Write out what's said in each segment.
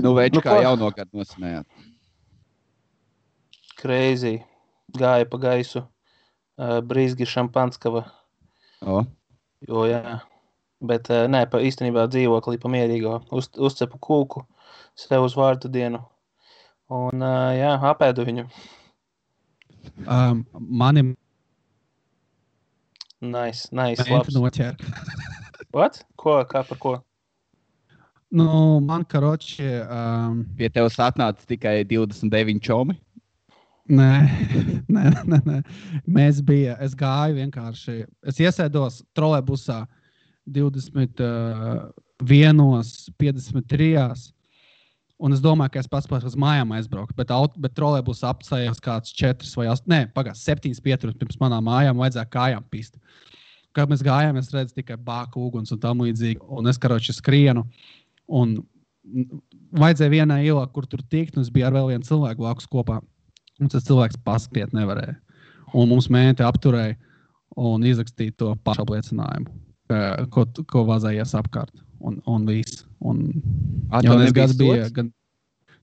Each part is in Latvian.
Nu, Večkā jaunogad nosmējāt. Crazy. Gāja pa gaisu. Brīzgi Šampanskava. Jo, jā. Bet nē, īstenībā dzīvoklī pa mierīgo. Uzcepu kūku sev uz vārdu dienu. Un, jā, apēdu viņu. Mani Nice, menti noķēra. What? Kā par ko? Nu, man karoči... Pie tevis atnāca tikai 29 čomi? Nē. Es gāju vienkārši. Es iesēdos trolejbusā 21:53. Un es domāju, ka es pats uz mājām aizbraucu. Bet trolejbus apcējās kāds 4 vai 8. Nē, 7 pieturas pirms manām mājām vajadzēja kājām pist. Kad mēs gājām, es redzu tikai bāku uguns un tam līdzīgi. Un es karoči skrienu. Un vajadzēja vienā ielā, kur tur tikt. Un es biju ar vēl vienu cilvēku blakus kopā. Un tas cilvēks paskriet nevarēja. Un mums menti apturēja un izrakstīja to pašapliecinājumu, ko vazājies apkārt. Un viss. Jaunais gads bija...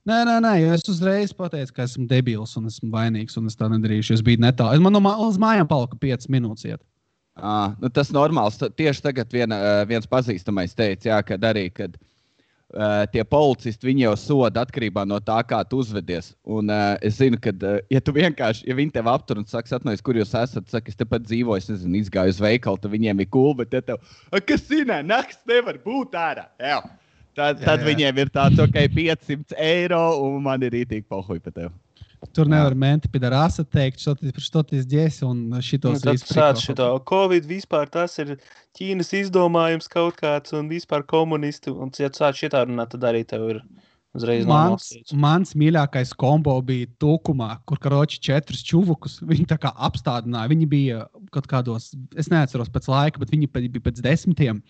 Nē, jo es uzreiz pateicu, ka esmu debils un esmu vainīgs un es tā nedarīšu. Es biju netālu. Man uz mājām palika 5 minūtes iet. Nu tas normāls. Tieši tagad viens pazīstamais teica, jā, kad arī, kad tie policisti, viņi jau soda atkarībā no tā, kā tu uzvedies. Un es zinu, ka, ja tu vienkārši, ja viņi tev aptur un saka, atnojies, kur jūs esat, saka, es tepat dzīvoju, es nezinu, izgāju uz veikalu, tad viņiem ir cool, bet ja tev, kas zinā, nakts nevar būt ārā. Jā. Tad viņiem ir tāds, ok, 500 eiro, un man ir rītīgi pohuj pa tev. Tur nevar menti pidarāsa teikt, štoties ģesi un šitos visu prikolu. Covid vispār tas ir Ķīnas izdomājums kaut kāds un vispār komunisti. Un ja tu sāc šitā runāt, tad arī tev ir uzreiz nomalstīts. Mans mīļākais kombo bija Tūkumā, kur karoči 4 čuvukus. Viņi tā kā apstādināja. Viņi bija kaut kādos, es neatceros pēc laika, bet viņi bija pēc 10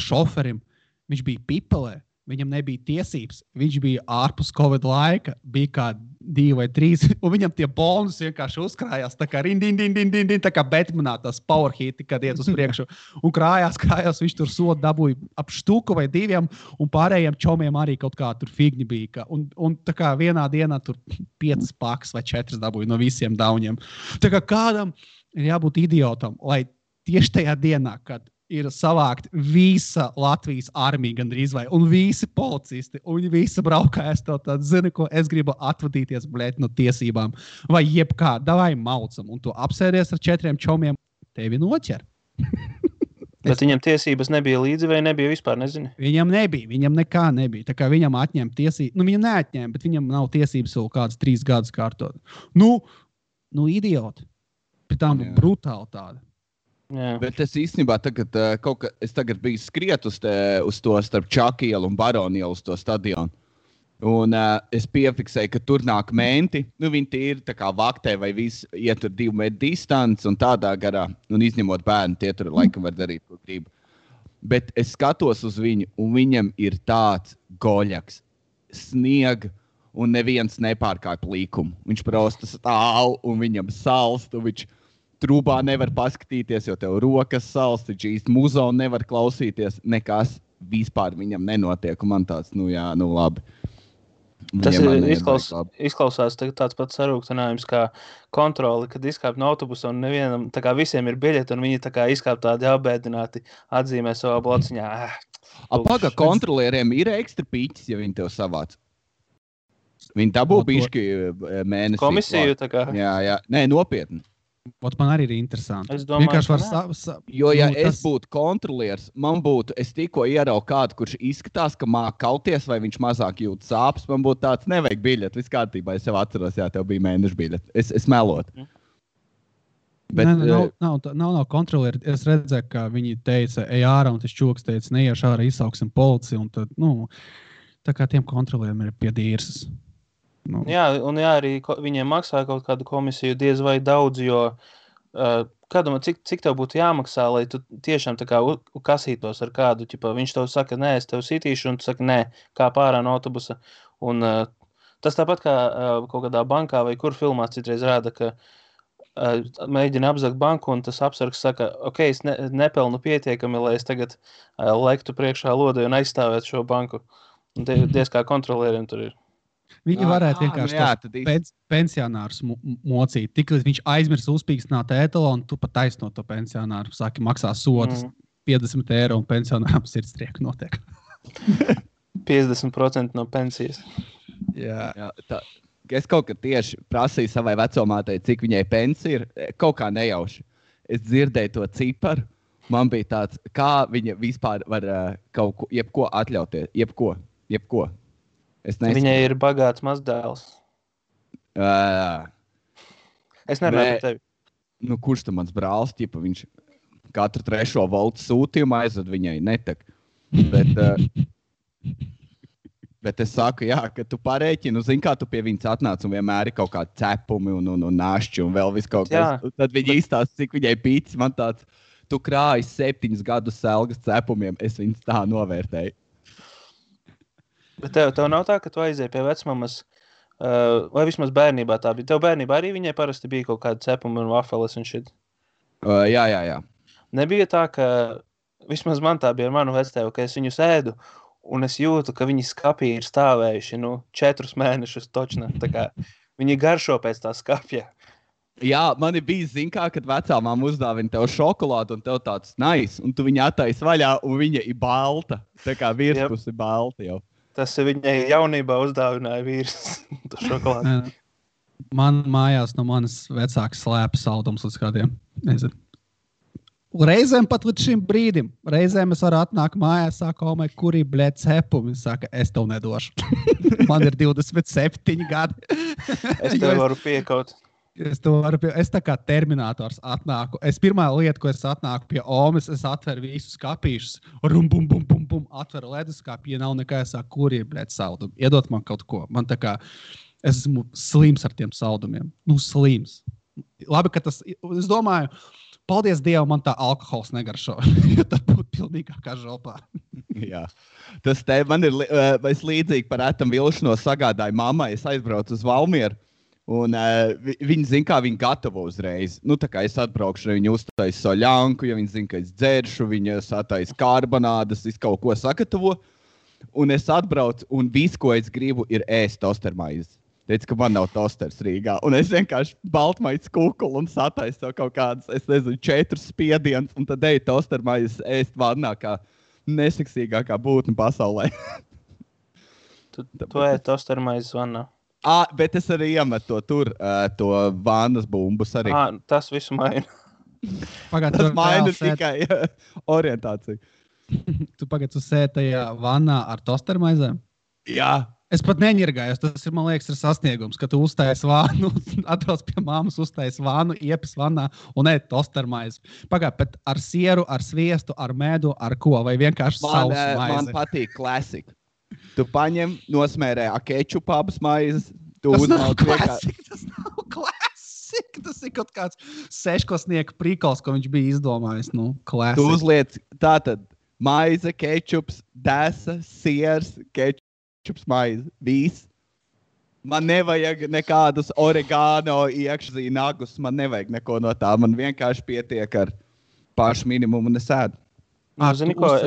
šoferim. Viņš bija pipelē. Viņam nebija tiesības, viņš bija ārpus Covid laika, bija kā 2 vai 3, un viņam tie bonus vienkārši uzkrājās, tā kā tā kā Batmanā tās power hiti, kad iet uz priekšu, un krājās, viņš tur sodu dabūja ap štuku vai 2, un pārējiem čomiem arī kaut kā tur figņi bija, un tā kā vienā dienā tur 5 pakas vai 4 dabūja no visiem dauņiem. Tā kā kādam ir jābūt idiotam, lai tieši tajā dienā, kad ir savākt visa Latvijas armija gandrīz vai, un visi policisti, un viņi visi braukājas to tādu, zini, ko es gribu atvadīties, blēt, no tiesībām, vai jebkā, davai maucam, un tu apsēdies ar 4 čomiem, tevi noķer. Bet viņam tiesības nebija līdzi vai nebija vispār, nezinu? Viņam nekā nebija, tā kā viņam atņēma tiesības, viņam neatņēma, bet viņam nav tiesības vēl kāds 3 gadus kārtot. Nu, idioti, pie tām brutāli tāda. Jā. Bet es īstenībā tagad biju skriet uz to starp Čakielu un Baronielu uz to stadionu. Un es piefiksēju, ka tur nāk menti. Nu, viņi tīri tā kā vaktē vai visi iet tur 2 metru distanci un tādā garā. Un izņemot bērnu, tie tur laikam var darīt, ko grib. Bet es skatos uz viņu, un viņam ir tāds goļaks, sniega, un neviens nepārkāp līkumu. Viņš prosta stāv, un viņam salst, un viņš trūbā nevar paskatīties, jo tev rokas salst, viņš īsti muzonu nevar klausīties, nekas vispār viņam nenotiek, un man tāds, labi. Tas izklausās tāds pats sarūktinājums kā kontroli, kad izkāp no autobusa un nevienam, tā kā visiem ir biļeti, un viņi tā kā izkāp tādi apbēdināti, atzīmē savā blociņā. Paga kontrolieriem ir ekstra pīķis, ja viņi tev savāc. Viņi dabū bišķi mēnesi. Komisiju tā kā? Jā. Nē, nopietni. Man arī ir interesanti. Es domāju, jo, ja es būtu kontrolieris, es tikko ieraugu kādu, kurš izskatās, ka māk kauties, vai viņš mazāk jūt sāpes, man būtu tāds, nevajag biļeti, viss kārtībā, es jau atceros, jā, tev bija mēneša biļeti. Es melot. Bet, nav kontrolieri. Es redzēju, ka viņi teica, ej ārā, un tas čoks teica, neiešu ārā, izsauksim policiju, un tad, tā kā tiem kontrolieriem ir pie dīrsas. Jā, un arī viņiem maksā kaut kādu komisiju diez vai daudz, jo kādam, cik tev būtu jāmaksā, lai tu tiešām tā kā kasītos ar kādu, ķipa, viņš tev saka, nē, es tev sitīšu, un tu saka, nē, kā pārā no autobusa. Un tas tāpat kā kaut kādā bankā vai kur filmās citreiz rāda, ka mēģina apzakt banku, un tas apsargs saka, ok, es nepelnu pietiekami, lai es tagad lektu priekšā lodai un aizstāvētu šo banku. Diez kā kontrolieriem tur ir. Viņi varētu vienkārši pensionārus mocīt. Tik līdz viņš aizmirs uzpīkstināt ētalonu, tu pat taisno to pensionāru. Sāki maksā sodus 50 eiro un pensionāram sirdstrieku notiek. 50% no pensijas. Jā, es kaut kad tieši prasīju savai vecomātei, cik viņai pensija ir. Kaut kā nejauši. Es dzirdēju to ciparu. Man bija tāds, kā viņa vispār var kaut ko, jebko atļauties. Jebko. Viņai ir bagāts mazdēls. Es nerunāju par tevi. Nu, kurš tam mans brālis, ķipa, viņš katru 3. voltu sūtījumu aizved viņai netak. Bet es saku, jā, ka tu parēķini, zini, kā tu pie viņas atnāc un vienmēr ir kaut kādi cepumi un našķi un vēl viss kaut kas. Tad viņa īstās, cik viņai pīcis, man tāds, tu krāji 7 gadus selgas cepumiem, es viņas tā novērtēju. Bet tev nav tā, ka tu aizēji pie vecmamas, vai vismaz bērnībā tā bija? Tev bērnībā arī viņai parasti bija kaut kāda cepuma un vafeles un shit? Jā. Nebija tā, ka vismaz man tā bija ar manu vectēvu, ka es viņu sēdu un es jūtu, ka viņi skapī ir stāvējuši 4 mēnešus točna. Tā kā viņi garšo pēc tā skapja. Jā, man bija zin kā, kad vecā māma uzdāvina tev šokolādu un tev tāds nice, un tu viņu attaisi vaļā un viņa ir balta. Tā kā virspus ir balta jau. Tas viņai jaunībā uzdāvināja vīrs to šokolādu. Man mājās no manas vecākas slēpa saldums līdz kādiem, nezinu. Reizēm pat līdz šim brīdim. Reizēm es varu atnākt mājās, sāku, kurī blēt cepumi. Saka, es tev nedošu. Man ir 27 gadi. Es tev varu piekaut. Es tā kā terminators atnāku. Pirmā lieta, ko es atnāku pie Omes, es atveru visus kapīšus. Bum, atveru leduskāpi, ja nav nekā, es saku, kurī blēt saldumi. Iedot man kaut ko. Man tā kā, es esmu slims ar tiem saldumiem. Slims. Labi, ka tas, es domāju, paldies Dievam, man tā alkohols negaršo. Jo tad būtu pilnīgākā žopā. Jā. Tas te man ir līdzīgi par ētam vilšanos sagādāju mammai. Es aizbraucu uz Valmieru. Un viņi zina, kā viņi gatavo uzreiz. Tā kā es atbraukšu, viņi uztais soļanku, ja viņi zina, ka es dzeršu, viņi satais karbonādas, es kaut ko sagatavo. Un es atbraucu, un viss, ko es gribu, ir ēst tostermaizes. Teicu, ka man nav tosters Rīgā. Un es vienkārši baltmaiz kukulu un sataisu kaut kādas, 4 spiedienus, un tad eju tostermaizes ēst vannā kā neseksīgākā būtne pasaulē. Tu ēd tostermaizes vannā? Bet es arī iemetu to vannas bumbus arī. Tas visu maina. Tas maina tikai orientāciju. Tu tu sēdi tajā vannā ar tostermaizēm? Jā. Es pat neņirgājos. Tas ir, man liekas, ir sasniegums, ka tu uztais vānu, atbrauc pie māmas, uztais vānu, iepis vannā un ēd tostermaizi. Bet ar sieru, ar sviestu, ar medu, ar ko? Vai vienkārši sausu maizi? Man patīk klasika. Tu paņem, nosmērē kečupu abas maizes. Tas nav klasika. Tas ir kaut kāds 6-klasnieka prikals, ko viņš bija izdomājis. Klasika. Tu uzliec tātad maize, kečups, desa, siers, kečups, maize. Viss. Man nevajag nekādus oregano iekšzīnagus. Man nevajag neko no tā. Man vienkārši pietiek ar pašu minimumu un es ēdu. Zini ko,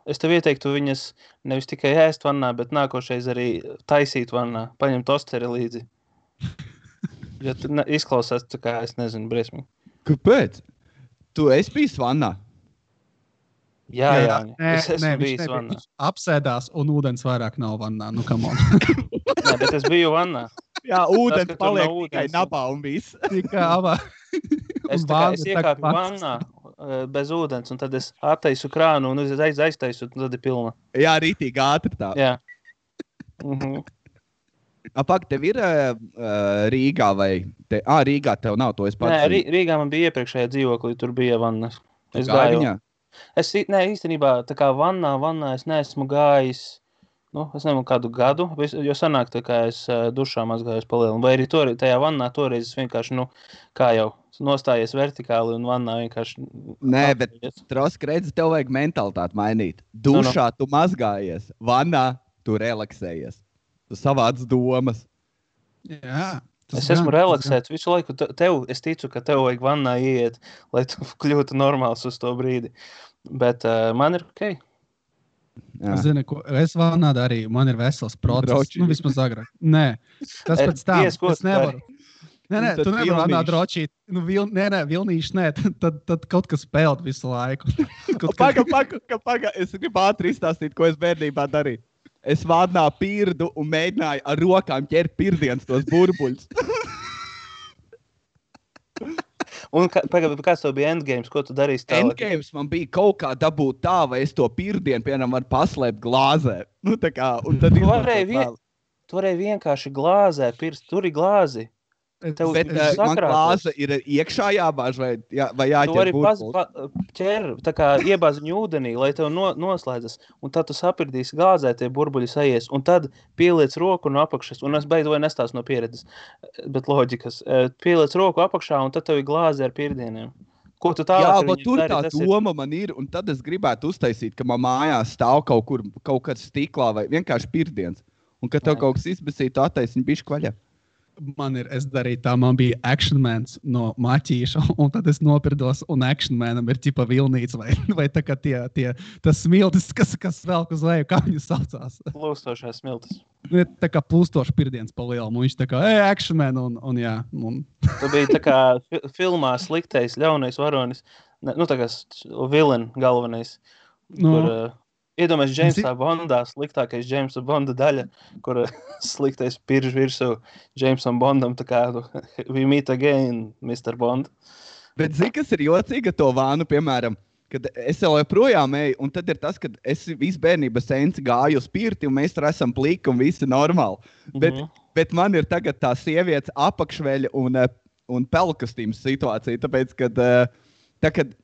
es tev ieteiktu viņas nevis tikai ēst vannā, bet nākošais arī taisīt vannā. Paņem tosteri līdzi. Ja tu izklausās, tā kā es nezinu, briesmīgi. Kāpēc? Tu esi bijis vannā? Jā. Es esmu bijis vannā. Apsēdās un ūdens vairāk nav vannā. Come on. Nē, bet es biju vannā. Jā, ūdens paliek tikai nabā un viss. Tikai abā. Es iekāpu vannā bez ūdens, un tad es attaisu krānu un aiztaisu, un tad ir pilna. Jā, rītīgi ātri tā. Jā. Pak, tev ir Rīgā vai... Rīgā tev nav, to es pats. Nē, Rīgā man bija iepriekšējā dzīvoklī, tur bija vannas. Es gāju viņā? Īstenībā, tā kā vannā es neesmu gājis, es nezinu kādu gadu, jo sanāk, tā kā es dušā mazgājos palielinu. Vai arī tajā vannā toreiz es vienkārši, kā jau nostājies vertikāli un vannā vienkārši... Nē, bet Trosk, redzi, tev vajag mentalitāti mainīt. Dušā tu mazgājies, vannā tu relaksējies. Tu savāc domas. Jā. Es esmu relaksēts visu laiku. Es ticu, ka tev vajag vannā ieiet, lai tu kļūtu normāls uz to brīdi. Bet man ir ok. Es zinu, ko es vannā darīju, man ir vesels process. Droči. Vismaz agrāk. Nē, tas pēc tam. Es nevaru. Nē, tu nevari vannā drošīt. Vilnīši, nē. Tad kaut kas spēlēt visu laiku. Paga. Es gribu ātri izstāstīt, ko es bērnībā darīju. Es vannā pirdu un mēģināju ar rokām ķert pirdienas tos burbuļus. Un kāds tev bija endgames, ko tu darīsi tālāk? Endgames man bija kaut kā dabūt tā, vai es to pirdienu, piemēram, varu paslēpt glāzē. Tā kā, un tad Tu varēji vienkārši glāzē pirst, tur ir glāzi. Bet man glāze ir iekšā jābāž vai jāķer Tu vari burbuļus? tā kā iebāz viņu ūdenī, lai tev noslēdzas, un tad tu sapirdīsi glāzē, tie burbuļi sajies, un tad pieliec roku no apakšas, un es beidu vai nestāstu no pieredzes, bet loģikas, pieliec roku apakšā, un tad tev ir glāze ar pirdieniem. Ko tu tālāk Jā, ar bet viņiem tur dari, tā doma man ir, un tad es gribētu uztaisīt, ka man mājās stāv kaut kāds stiklā vai vienkārši pirdiens, un kad tev kaut kas izbesītu attaisni bišķi vaļā. Es darīju tā, man bija Action Mans no Maķīša, un tad es nopirdos, un Action Manam ir ķipa vilnīca, vai tā kā tas smiltis, kas velk uz leju, kā viņu saucās. Plūstošās smiltis. Tā kā plūstoši pirdiens pa lielu, un viņš tā kā, Action Man, un jā. Tu biji tā kā filmā sliktais, ļaunais varonis, tā kā villain galvenais, kur... Iedomājies Jamesā Bondā, sliktākais Jamesa Bonda daļa, kur sliktais pirž virsū Jamesam Bondam, tā kā we meet again, Mr. Bond. Bet zini, kas ir jocīga to vānu, piemēram, kad es jau joprojām eju, un tad ir tas, kad es visu bērnības senci gāju uz pirti, un mēs tur esam pliki un visi normāli. Bet man ir tagad tā sievietes apakšveļa un pelkastīmas situācija, tāpēc, kad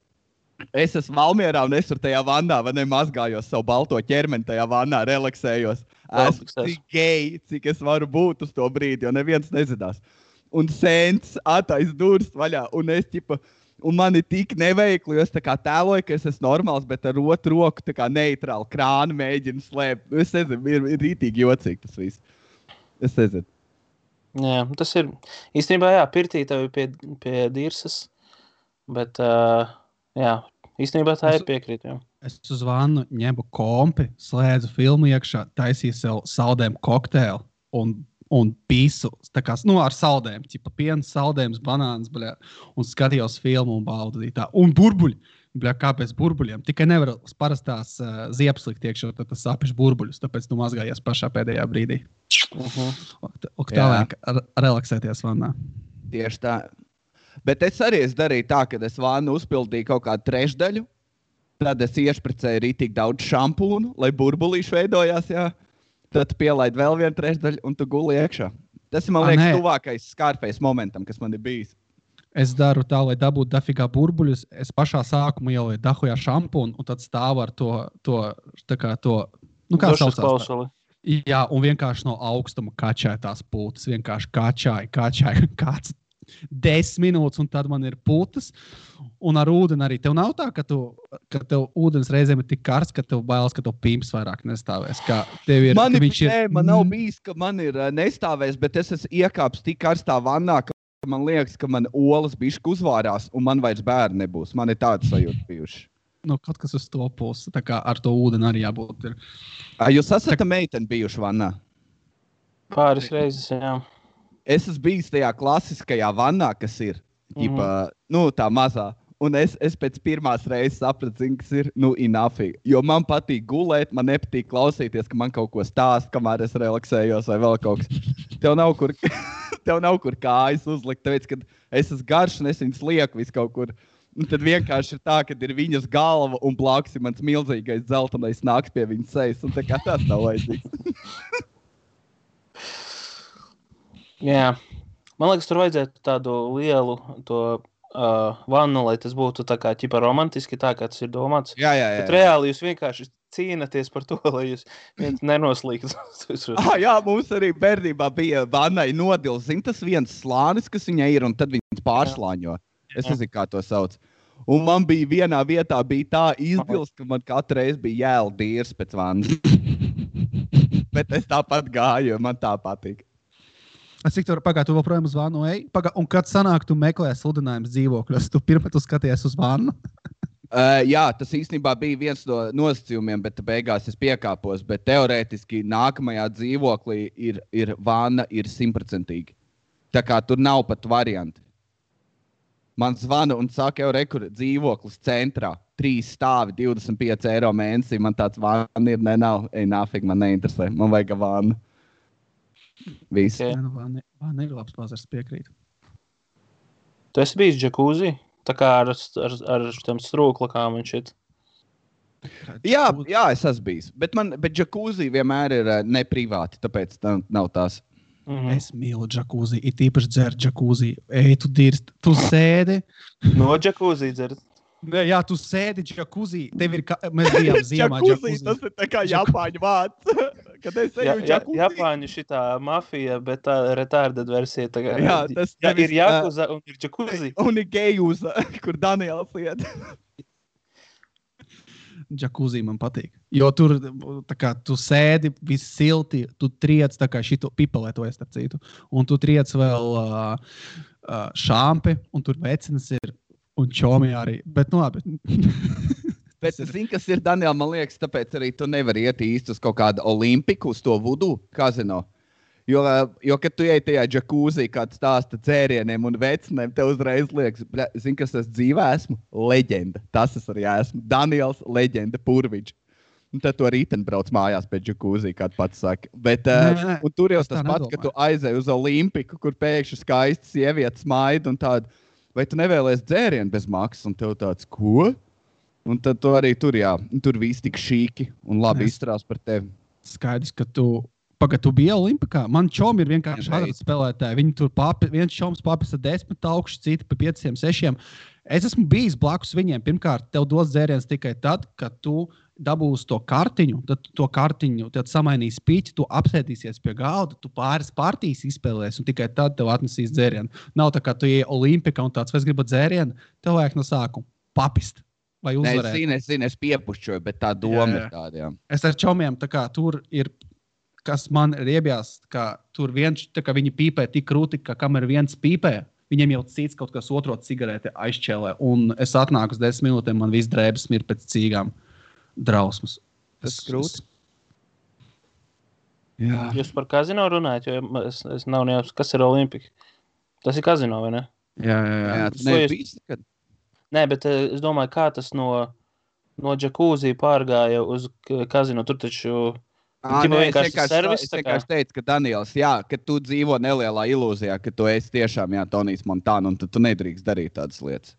es esmu Valmierā un es tur tajā vannā, vai ne, mazgājos savu balto ķermeni tajā vannā, relaksējos. Esmu tik gei, cik es varu būt uz to brīdi, jo neviens nezinās. Un sents attais durvis vaļā, un mani tik neveikli, jo es tā kā tēloju, ka es esmu normāls, bet ar otru roku tā kā neitrāli krānu mēģinu slēpt. Es nezinu, ir rītīgi jocīgi tas viss. Es nezinu. Jā, tas ir, īstenībā jā, pirtī tev ir pie dirsas, bet... Jā, īstenībā tā ir piekrīt. Jā. Es uz vannu ņemu kompi, slēdzu filmu iekšā, taisīju sev saldējumu kokteili un pīsu, tā kā, ar saldējumu, ķipa piens, saldējums, banāns, bļā, un skatījos filmu un baudīju tā. Un burbuļi, bļā, kāpēc burbuļiem? Tikai nevar parastās ziepes likt iekšā, tad tas sapiš burbuļus, tāpēc tu mazgājies pašā pēdējā brīdī. Tā vajag relaksēties vannā. Tieši tā. Bet es arī darīju tā, ka es vānu uzpildīju kaut kādu trešdaļu, tad es iešpricēju rītīgi daudz šampūnu, lai burbulīši veidojās, jā. Tad pielaid vēl vienu trešdaļu un tu guli iekšā. Tas ir, man liekas, tuvākais Scarface momentam, kas man ir bijis. Es daru tā, lai dabūtu dafigā burbuļus, es pašā sākumā ielieku dahujā šampūnu un tad stāvu ar kā saucās klausuli. Jā, un vienkārši no augstuma kačāja tās pūtas, vienkārši kačāja kāds 10 minūtes, un tad man ir putas, un ar ūdeni arī. Tev nav tā, ka tev ūdens reizēm ir tik karsts, ka tev bailes, ka tev pimps vairāk nestāvēs. Man nav bijis, ka man ir nestāvēs, bet es esmu iekāpis tik karstā vannā, ka man liekas, ka man olas bišķi uzvārās, un man vairs bērni nebūs. Man ir tāds sajūta bijuši. Kaut kas uz to pusi, tā kā ar to ūdeni arī jābūt. Jūs esat meiteni bijuši vannā? Pāris reizes, jā. Es esmu bijis tajā klasiskajā vannā, kas ir, tā mazā. Un es pēc pirmās reizes sapratu, kas ir, inafīgi. Jo man patīk gulēt, man nepatīk klausīties, ka man kaut ko stāst, kamēr es relaksējos vai vēl kaut kas. Tev nav kur kājas uzlikt, tāpēc, kad es esmu garš un es viņus lieku visu kaut kur. Un tad vienkārši ir tā, ka ir viņas galva un blakus ir mans milzīgais dzeltenais nāks pie viņas sejas. Un tā kā tas nav vajadzīgs. Jā, man liekas, tur vajadzētu tādu lielu vannu, lai tas būtu tā kā ķipa romantiski, tā kā tas ir domāts. Jā. Bet reāli jūs vienkārši cīnaties par to, lai jūs viens nenoslīgtu. Jā, mums arī bērnībā bija vannai nodils. Zin, tas viens slānis, kas viņai ir, un tad viņas pārslāņo. Es nezinu, kā to sauc. Un man bija vienā vietā tā izdils, ka man katru reizi bija jēl dīrs pēc vannas. Bet es tāpat gāju, jo man tā patīk. Es cik tu vēl projām uz vannu ej? Un kad sanāk, tu meklē sludinājumus dzīvokļos, tu pirmā tu skaties uz vannu? Jā, tas īstenībā bija viens no nosacījumiem, bet beigās es piekāpos. Bet teorētiski nākamajā dzīvoklī ir vanna, ir 100%. Tā kā tur nav pat varianti. Man zvana un saka, kur dzīvoklis centrā, 3 stāvi, 25 eiro mēnesī. Man tāds vanna ir, nav, nāfig, man neinteresē. Man vajag vannu. Viss. Okay. Vanna ir labs pazars, piekrīt. Tu esi bijis džakūzī? Tā kā ar tiem strūklakām un šit. Jā, es esmu bijis. Bet džakūzī vienmēr ir neprivāti, tāpēc nav tās. Es mīlu džakūzī, it īpaši dzer džakūzī. Ej, tu dirst, tu sēdi. No džakūzī dzert? Jā, tu sēdi džakūzī. Tev ir, mēs bijām ziemā džakūzī. Tas ir tā kā Japāņu vārds. Kad es eju džakūzī. Japāņu šitā mafija, bet tā retarded versija. Tā, jā, tas ir jakuza un ir džakūzī. Un ir gejuza, kur Daniels iet. Džakūzī man patīk. Jo tur, tā kā, tu sēdi, viss silti, tu triec, tā kā šito pipelētojas, starp citu. Un tu triec vēl šāmpi, un tur vecinas ir, un čomi arī. Bet, nu labi. Bet zini, kas ir, Daniel, man liekas, tāpēc arī tu nevari iet īsti uz kaut kādu olimpiku, uz to vudu kazino. Jo, kad tu ej tajā džakūzī, kāds stāsta dzērieniem un vecinēm, tev uzreiz liekas, zini, kas es dzīvē esmu? Leģenda. Tas es arī esmu. Daniels, leģenda, Purviģis. Un tad tu arī brauc mājās pēc džakūzī, kā tu pats saki. Bet un tur jau tas pats, ka tu aizej uz olimpiku, kur pēkšņi skaisti sievietes maida un tāda, vai tu nevēlies dzērienu bez maksas? Un tev tāds, ko? Un tad tu arī tur, jā, tur viss tik šīki un labi izturās par tevi. Skaidrs, ka tu biji Olimpikā. Man čomi ir vienkārši azartspēlētāji. Viņi tur viens čoms papisa 10 augšu, citi pa 5, 6. Es esmu bijis blakus viņiem. Pirmkārt, tev dos dzēriens tikai tad, kad tu dabūsi to kartiņu, tad to kartiņu, tad samainīs piķi, tu apsēdīsies pie galda, tu pāris partijas izspēlēsi un tikai tad tev atnesīs dzērienu. Nav tā, kā tu ej Olimpikā un tāds, vai es gribu dzērienu, tev vajag no sākuma papist. Vai uzvarēt. Es zinu, es piepušķoju, bet tā doma ir tāda, jā. Es ar čomiem, tā kā tur ir, kas man riebjās, ka tur viens, tā kā viņi pīpē tik krūti, ka kamēr viens pīpē, viņiem jau cits kaut kas otro cigarete aizšķēlē. Un es atnāku uz 10 minūtēm, man viss drēbes mir pēc cīgām. Drausmas. Tas krūti. Jā. Jūs par kazino runājat, jo es nav nejaus, kas ir Olimpika? Tas ir kazino, vai ne? Jā. Tu nebijis nekad? Nē, bet es domāju, kā tas no džakūzī pārgāja uz kazino. Tur taču vienkārši servis. Es vienkārši teicu, ka Daniels, jā, ka tu dzīvo nelielā ilūzijā, ka tu esi tiešām, jā, Tonijs Montana, un tu nedrīkst darīt tādas lietas.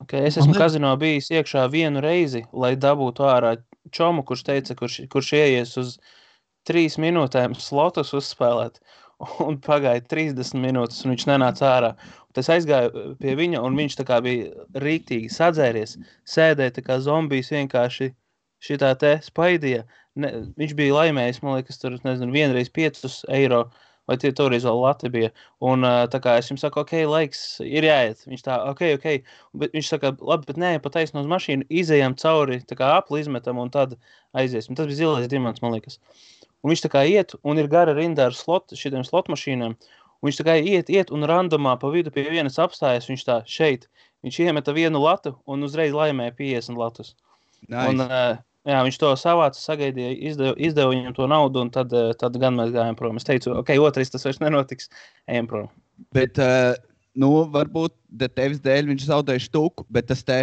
Okay, es esmu kazino bijis iekšā vienu reizi, lai dabūtu ārā čomu, kurš teica, kurš ieies uz 3 minūtēm slotus uzspēlēt. Un pagāja 30 minūtes, un viņš nenāca ārā. Es aizgāju pie viņa, un viņš tā kā bija rīktīgi sadzēries, sēdēja tā kā zombijs vienkārši šitā te spaidīja. Viņš bija laimējis, man liekas, tur, nezinu, vienreiz 5 eiro, vai toreiz vēl lati bija. Un tā kā es jums saku, ok, laiks ir jāiet. Viņš tā, ok. Bet viņš saka, labi, bet nē, pataisno uz mašīnu, izejam cauri, tā kā apli izmetam, un tad aiziesim. Tas bija zilais dimants, man liekas. Un viņš tā kā iet, un ir gara rinda ar šitiem slot mašīnām. Un viņš tā kā iet, un randomā pa vidu pie vienas apstājas, viņš tā šeit. Viņš iemeta vienu latu, un uzreiz laimēja 50 latus. Nice. Un jā, viņš to savāca, sagaidīja, izdeva viņam to naudu, un tad gan mēs gājām prom. Es teicu, ok, otrais tas vairs nenotiks, ejam prom. Bet, varbūt tevis dēļ viņš zaudēja štuku, bet tas te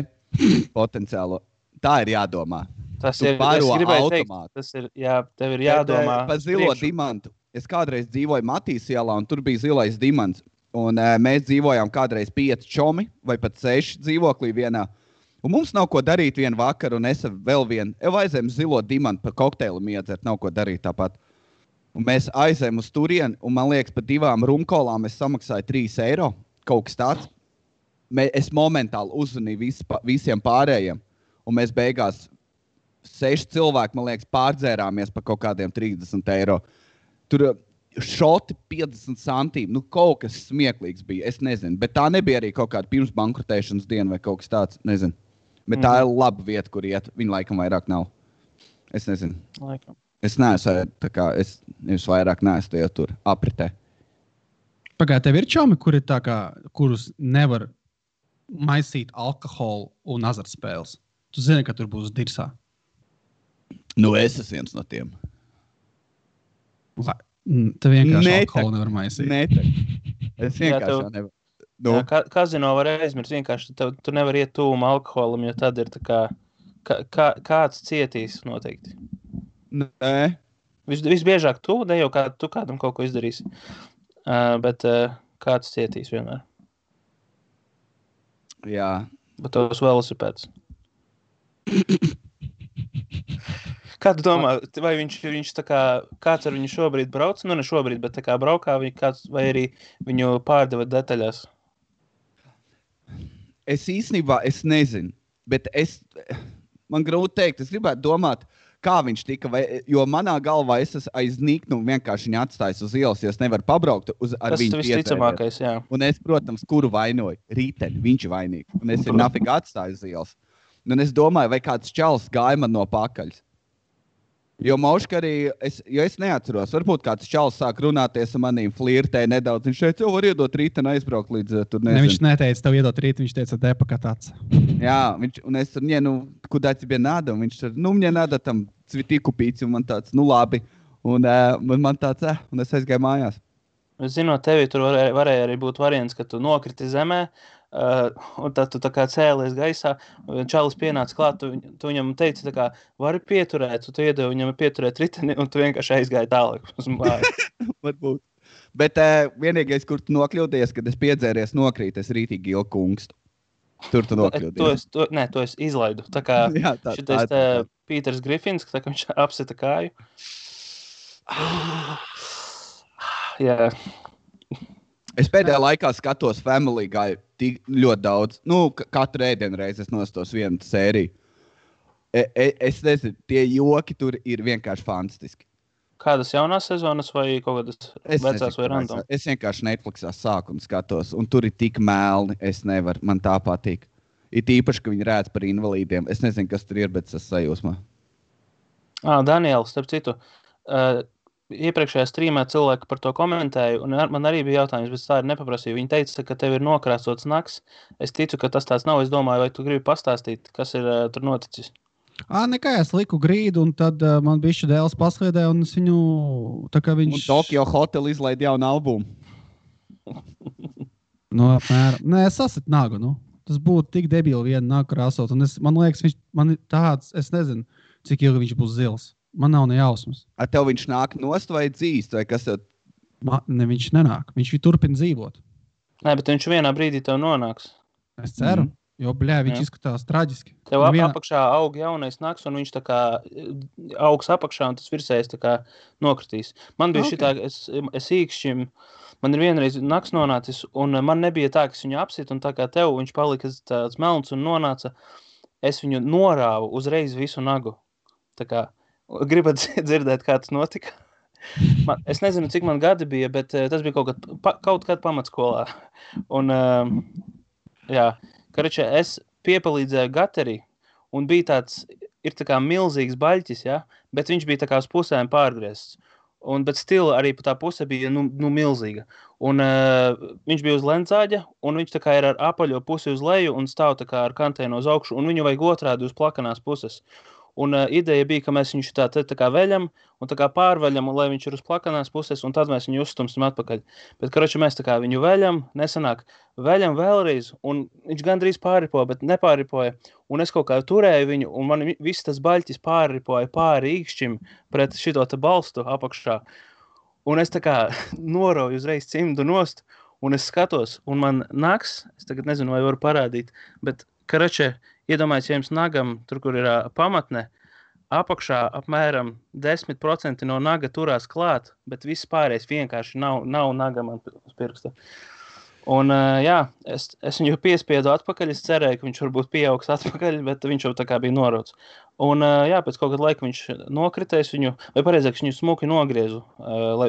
potenciālo. Tā ir jādomā. Tas ir, es gribēju teikt, tas ir, jā, tev ir jādomā. Par zilo dimantu. Es kādreiz dzīvoju Matīs ielā, un tur bija zilais dimants. Un mēs dzīvojām kādreiz 5 čomi, vai pat 6 dzīvoklī vienā. Un mums nav ko darīt vienu vakaru, un es vēl vienu. Aizējām zilo dimantu par kokteilu iedzert, nav ko darīt tāpat. Un mēs aizējām uz turieni, un man liekas, par 2 rumkolām es samaksāju 3 eiro, kaut kas tāds. Es momentāli uzzvanīju visiem pārējiem, un mēs beigās 6 cilvēki, man liekas, pārdzērāmies par kaut kādiem 30 eiro. Tur šoti 50 centīm, kaut kas smieklīgs bija, es nezinu. Bet tā nebija arī kaut kāda pirms bankrotēšanas diena vai kaut kas tāds, nezinu. Bet tā ir laba vieta, kur iet. Viņa laikam vairāk nav. Es nezinu. Laikam. Es neesmu, tā kā, es vairāk neesmu tajā tur apritē. Pagāj, tev ir čomi, kuri tā kā, kurus nevar maisīt alkoholu un azartspēles? Tu zini, ka tur būs dirsā. Nu, es esmu viens no tiem. Tev vienkārši alkoholu nevar maisīt. Es vienkārši jau nevaru. Nu. Jā, kazino var aizmirst, vienkārši tu nevar iet tūma alkoholam, jo tad ir tā kā kāds cietīs noteikti. Nē. Visbiežāk tu, ne jau tu kādam kaut ko izdarīsi, bet kāds cietīs vienmēr. Jā. Bet tos velosipēdus. Kā tu domā, vai viņš tā kā, kāds ar viņu šobrīd brauc? Nu, ne šobrīd, bet tā kā braukā kāds, vai arī viņu pārdeva detaļās? Es īstenībā, es nezinu, bet man grūti teikt, es gribētu domāt, kā viņš tika, jo manā galvā es esmu aiz niknu vienkārši viņu atstājis uz ielas, jo es nevaru pabraukt ar viņu Tas visticamākais, jā. Un es, protams, kuru vainoju? Rīteni, viņš ir vainīgs. Un es viņu nafīgi atstāju uz ielas. Un es domāju, vai kāds čalis gāja man no pakaļas. Jo Mauška arī, jo es neatceros, varbūt kāds čalis sāk runāties ar manīm, flirtēja nedaudz. Viņš šeit jau var iedot rīteni aizbraukt līdz tur nezinu. Ne, viņš neteica tev iedot rīteni, viņš teica depakatāts. Jā, un es tur, куда тебе надо? Un viņš tur, мне надо там цветы купить. Un man tāds, labi. Un man tāds, un es aizgāju mājās. Zinot tevi, tur varēja arī būt variants, ka tu nokriti zemē, un tad tu tā kā cēlies gaisā, čalis pienāca klāt, tu viņam teici tā kā, vari pieturēt, tu iedevi viņam pieturēt riteni, un tu vienkārši aizgāji tālāk uz māju. Varbūt. Bet vienīgais, kur tu nokļūdies, kad es piedzēries nokrīt, es rītīgi ilgu kungstu. Tur tu nokļūdies. To es izlaidu. Tā kā šitais Pīters Grifins, tā kā viņš apsita kāju. Jā. Es pēdējā laikā skatos Family Guy tik ļoti daudz. Katru ēdienu reizi es nostos vienu sēriju. Es nezinu, tie joki tur ir vienkārši fantastiski. Kādas jaunās sezonas vai kaut kādas vecās vai random? Es vienkārši Netflixā sāku un skatos, un tur ir tik melni, es nevaru, man tā patīk. It īpaši, ka viņi rēdz par invalīdiem. Es nezinu, kas tur ir, bet es sajūsmā. Daniels, starp citu, iepriekšējā streamā cilvēki par to komentēja, un man arī bija jautājums, bet tā ir nepaprasīja. Viņi teica, ka tev ir nokrāsots naks. Es ticu, ka tas tāds nav. Es domāju, vai tu gribi pastāstīt, kas ir tur noticis? Nekā, es liku grīdu, un tad man bišķi dēls pasliedēja, un es viņu, tā kā viņš... Un Tokyo Hotel izlaid jaunu albumu. Apmēram. Nē, es sasitu nagu, Tas būtu tik debili vienu nagu krāsot, un man liekas, man ir tāds, es nezinu, cik ilgi viņš būs zils. Man nav ne jausmas. Tev viņš nāk nost vai dzīst, vai kas tev? Ne, viņš nenāk. Viņš turpina dzīvot. Nē, bet viņš vienā brīdī tev nonāks. Es ceru, jo, viņš izskatās traģiski. Tev apakšā aug jaunais naks, un viņš tā kā augs apakšā, un tas virsējais tā kā nokritīs. Man bija šitā, es īkšķim, man ir vienreiz naks nonācis, un man nebija tā, ka es viņu apsit, un tā kā tev viņš palika tāds melns un nonāca, es viņu norāvu uzreiz visu nagu. Tā kā, gribat dzirdēt, kā tas notika? Es nezinu, cik man gadi bija, bet tas bija kaut kad pamatskolā. Un, jā, karačē, es piepalīdzēju gateri, un bija tāds, ir tā kā milzīgs baļķis, ja? Bet viņš bija tā kā uz pusēm pārgriezts. Bet stila arī pa tā puse bija milzīga. Un viņš bija uz lencāģa, un viņš tā kā ir ar apaļo pusi uz leju un stāv tā kā ar kantēnu uz augšu, un viņu vajag otrādi uz plakanās puses. Un ideja bija, ka mēs viņu tā kā veļam un tā kā pārveļam, lai viņš ir uz plakanās puses, un tad mēs viņu uzstumsim atpakaļ. Bet, karači, mēs tā kā viņu veļam, nesanāk, veļam vēlreiz, un viņš gandrīz pārripoja, bet nepārripoja. Un es kaut kā turēju viņu, un man viss tas baļķis pārripoja pāri īkšķim pret šito te balstu apakšā. Un es tā kā norauju uzreiz cimdu nost, un es skatos, un man naks, es tagad nezinu, vai varu parādīt, bet, karači, iedomājies, ja jums nagam, tur, kur ir pamatne, apakšā apmēram 10% no naga turās klāt, bet viss pārējais vienkārši nav naga man uz pirksta. Un jā, es viņu piespiedu atpakaļ, es cerēju, ka viņš varbūt pieaugs atpakaļ, bet viņš jau tā kā bija norauts. Un jā, pēc kaut kāda laika viņš nokritēs viņu, vai pareizāk, viņu smuki nogriezu,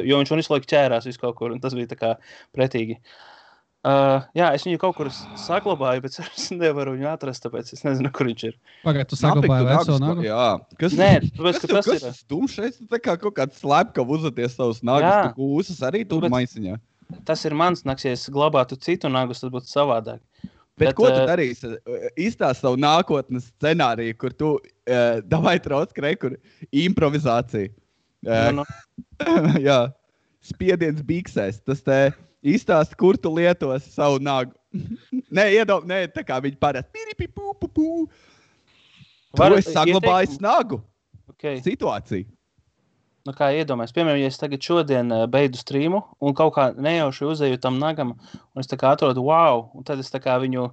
jo viņš visu laiku ķērās visu kaut kur, un tas bija tā kā pretīgi. Jā, es viņu kaut kur saglabāju, bet es nevaru viņu atrast, tāpēc es nezinu, kur viņš ir. Pagaid, tu saglabāji veco nagu? Jā. Nē, tāpēc, ka tas ir... Kas dumšais? Tā kā kaut kāds slepkav uzvaties savus nagus, tu kūsas arī tur maisiņā. Tas ir mans naks, ja es glabātu citu nagus, tad būtu savādāk. Bet ko tu darīsi? Izstāst savu nākotnes scenāriju, kur tu davai trauc kur improvizācija. Jā, spiediens biksēs. Tas te izstāst, kur tu lietos savu nagu. Nē, tā kā viņi parasti. Tu esi saglabājis nagu. Okay. Situāciju. Nu, kā iedomājies, piemēram, ja es tagad šodien beidzu streamu un kaut kā nejauši uzēju tam nagam, un es tā kā atrodu wow, un tad es tā kā viņu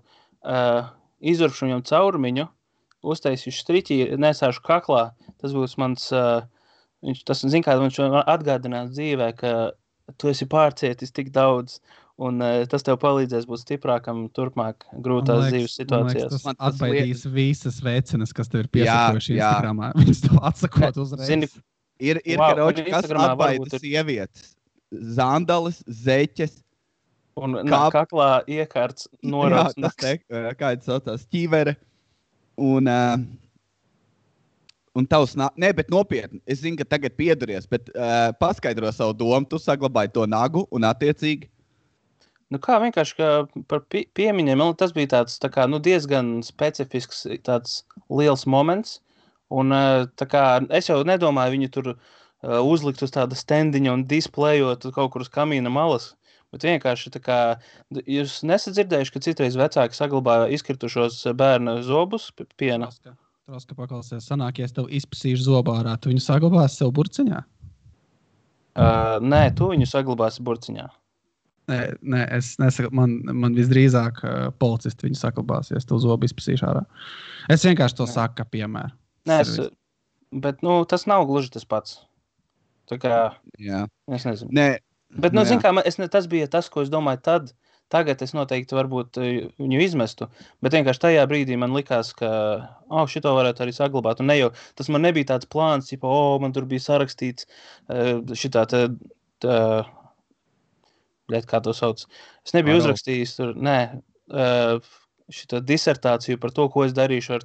izurpšu viņam caurumiņu, uztaisīšu striķi, nesāšu kaklā, tas būs mans, tas zin kā, viņš atgādinās dzīvē, ka tu esi pārcietis tik daudz, un tas tev palīdzēs būt stiprākam turpmāk grūtās dzīves situācijās. Tas atbaidīs visas vecenes, kas tev ir piesakojuši Instagramā. Viņas tev atsakot uzreiz. Zini, Ir karoči, kas atbaida sievietes. Zandalis, zeķes. Un kaklā iekārts norauts. Kā tas saucās, ķīvere. Un tavs bet nopietni. Es zinu, ka tagad pieduries, bet paskaidro savu domu. Tu saglabāji to nagu un attiecīgi. Nu kā vienkārši kā par piemiņiem, tas bija tāds tā kā, diezgan specifisks tāds liels moments. Un tā kā es jau nedomāju viņu tur uzlikt uz tāda standiņa un displejot kaut kur uz kamīna malas, bet vienkārši tā kā, jūs nesat dzirdējuši, ka citreiz vecāki saglabāja izkritušos bērnu zobus piena? Troska paklausies, sanāk, ja es tev izpasīšu zobā ārā, tu viņu saglabāsi sev burciņā? Nē, tu viņu saglabāsi burciņā. Nē, es nesaku, man visdrīzāk policisti viņu saglabāsies, tev zobu izpasīšu ārā. Es vienkārši to saku, kā piemēru. Nē, bet, tas nav gluži tas pats. Tā kā, es nezinu. Nē. Bet, zin kā, tas bija tas, ko es domāju tad. Tagad es noteikti varbūt viņu izmestu, bet vienkārši tajā brīdī man likās, ka, šito varētu arī saglabāt. Un ne jau, tas man nebija tāds plāns, man tur bija sarakstīts šitā kā to sauc. Es nebiju uzrakstījis tur, šitā disertāciju par to, ko es darīšu ar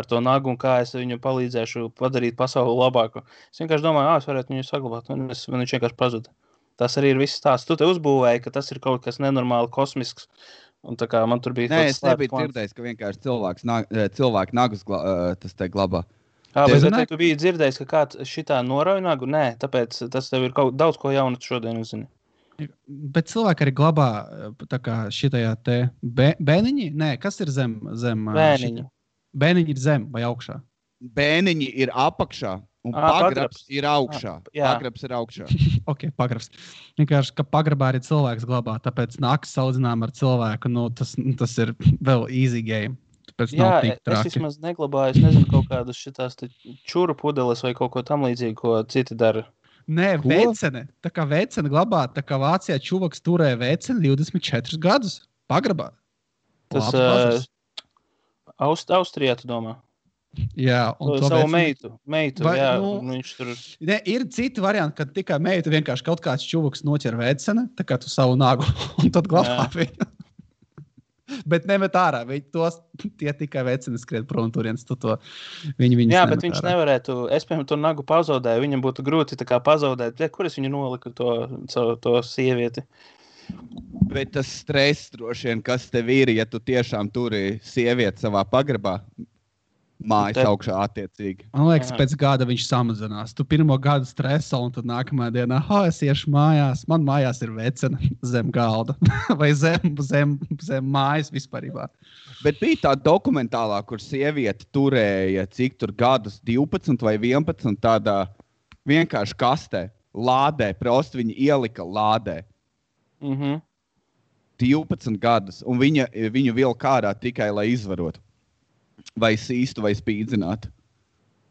to nagu un kā es viņu palīdzēšu padarīt pasauli labāku. Es vienkārši domāju, es varētu viņu saglabāt, un viņš vienkārši pazuda. Tas arī ir viss stāsts. Tu te uzbūvēji, ka tas ir kaut kas nenormāli kosmisks, un tā kā man tur bija... Nē, es nebiju dzirdējis, ka vienkārši cilvēku nagus tas te glabā. Bet tu biji dzirdējis, ka kāds šitā norauj nagu? Nē, tāpēc tas tev ir daudz ko jaunu šodien uzzini. Bet cilvēki arī glabā tā kā šitajā te bēniņi? Nē, kas ir zem? Bēniņi. Bēniņi ir zem vai augšā? Bēniņi ir apakšā un pagrabs ir augšā. Pagrabs ir augšā. Ok, pagrabs. Vienkārši, ka pagrabā arī cilvēks glabā, tāpēc nakas saudzinām ar cilvēku, tas ir vēl easy game. Tāpēc nav tik traki. Es vismaz neglabāju, es nezinu, kaut kādas šitās čuru pudeles vai kaut ko tam līdzīgi, ko citi dara. Nē, vecene. Tā kā vecene glabā, tā kā Vācijā čuvaks turēja veceni 24 gadus pagrabā. Tas Austrijā, tu domā? Jā. Un to savu meitu, jā. Viņš tur... Ne, ir citi varianti, kad tikai meitu vienkārši kaut kāds čuvaks noķer vecene, tā kā tu savu nagu, un tad glabā viņu. Bet nemet ārā, tie tikai veceni skriet prom turienes, viņi jā, bet viņš nevarētu, es piemēram to nagu pazaudēju, viņam būtu grūti tā kā pazaudēt, kur es viņu noliku to sievieti? Bet tas stress droši vien, kas tev ir, ja tu tiešām turi sievieti savā pagrabā, mājas augšā attiecīgi. Man liekas, pēc gada viņš samazinās. Tu pirmo gadu streso, un tad nākamā dienā, es iešu mājās. Man mājās ir vecena zem galda. Vai zem mājas vispārībā. Bet bija tā dokumentālā, kur sieviete turēja, cik tur gadus, 12 vai 11, tādā vienkārši kastē, lādē, prosti viņa ielika lādē. 12 gadus, un viņu vilka ārā tikai, lai izvarotu. Vai sīstu, vai spīdzinātu.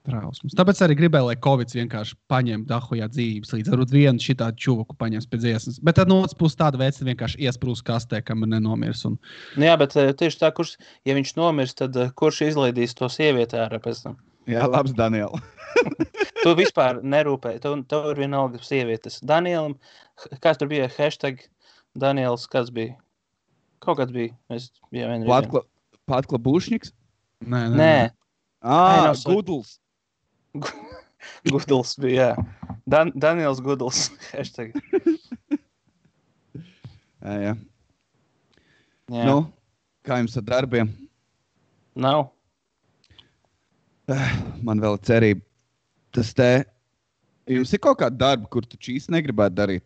Trausmas. Tāpēc arī gribēju, lai Covids vienkārši paņem dahujā dzīvības līdz varbūt vienu šitādu čuvaku paņems pēc dziesmas. Bet tad no otras puses tāda vecina vienkārši iesprūst kastē, kam ir nenomirs. Un... Jā, bet tieši tā, ja viņš nomirs, tad kurš izlaidīs to sievieti ārā pēc tam? Jā, labs, Daniel. Tu vispār nerūpēji. Tev ir vienalga sievietes. Danielam, kāds tur bija hashtag Daniels, kāds bija? Kaut kāds bija. Patkla Bušņiks? Nē. Gudls. Gudls bija, jā. Daniels Gudls. Hashtag. Jā. Nu, Kā jums ar darbiem? Nav. Man vēl ir cerība. Jums ir kaut kāda darba, kur tu īsti negribētu darīt?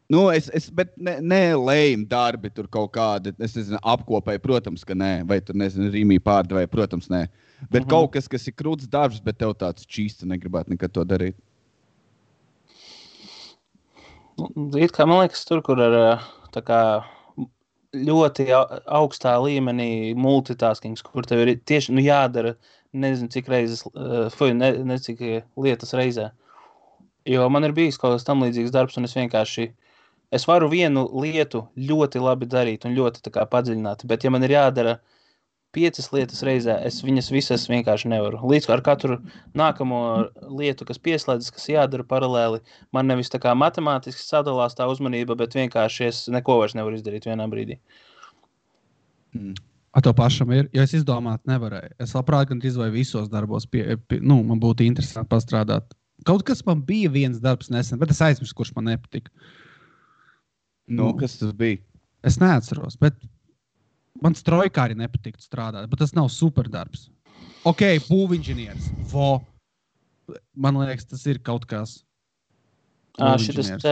Nu, bet ne lējumi darbi tur kaut kādi, es nezinu, apkopēji, protams, ka nē. Vai tur, nezinu, rīmī pārdevēji, protams, nē. Bet kaut kas ir krūts darbs, bet tev tāds čīsti negribētu nekad to darīt. It kā man liekas, tur, kur ar tā kā ļoti augstā līmenī multitaskings, kur tev ir tieši jādara nezinu cik reizes, cik lietas reizē. Jo man ir bijis kaut kas tam līdzīgs darbs, un es varu vienu lietu ļoti labi darīt un ļoti tā kā padziļināt, bet ja man ir jādara 5 lietas reizē, es viņas visas vienkārši nevaru. Līdz ar katru nākamo lietu, kas pieslēdzas, kas jādara paralēli, man nevis tā kā matemātiski sadalās tā uzmanība, bet vienkārši es neko vairs nevaru izdarīt vienā brīdī. To pašam ir, jo es izdomāt nevarēju. Es labprāt gan izvēju visos darbos, man būtu interesanti pastrādāt. Kaut kas man bija viens darbs nesen, bet es aizmirsu, kurš man nepatika. Kas tas bija? Es neatceros, bet man strojkā arī nepatiktu strādāt, bet tas nav superdarbs. Ok, būvinženieris. Man liekas, tas ir kaut kas. Šitas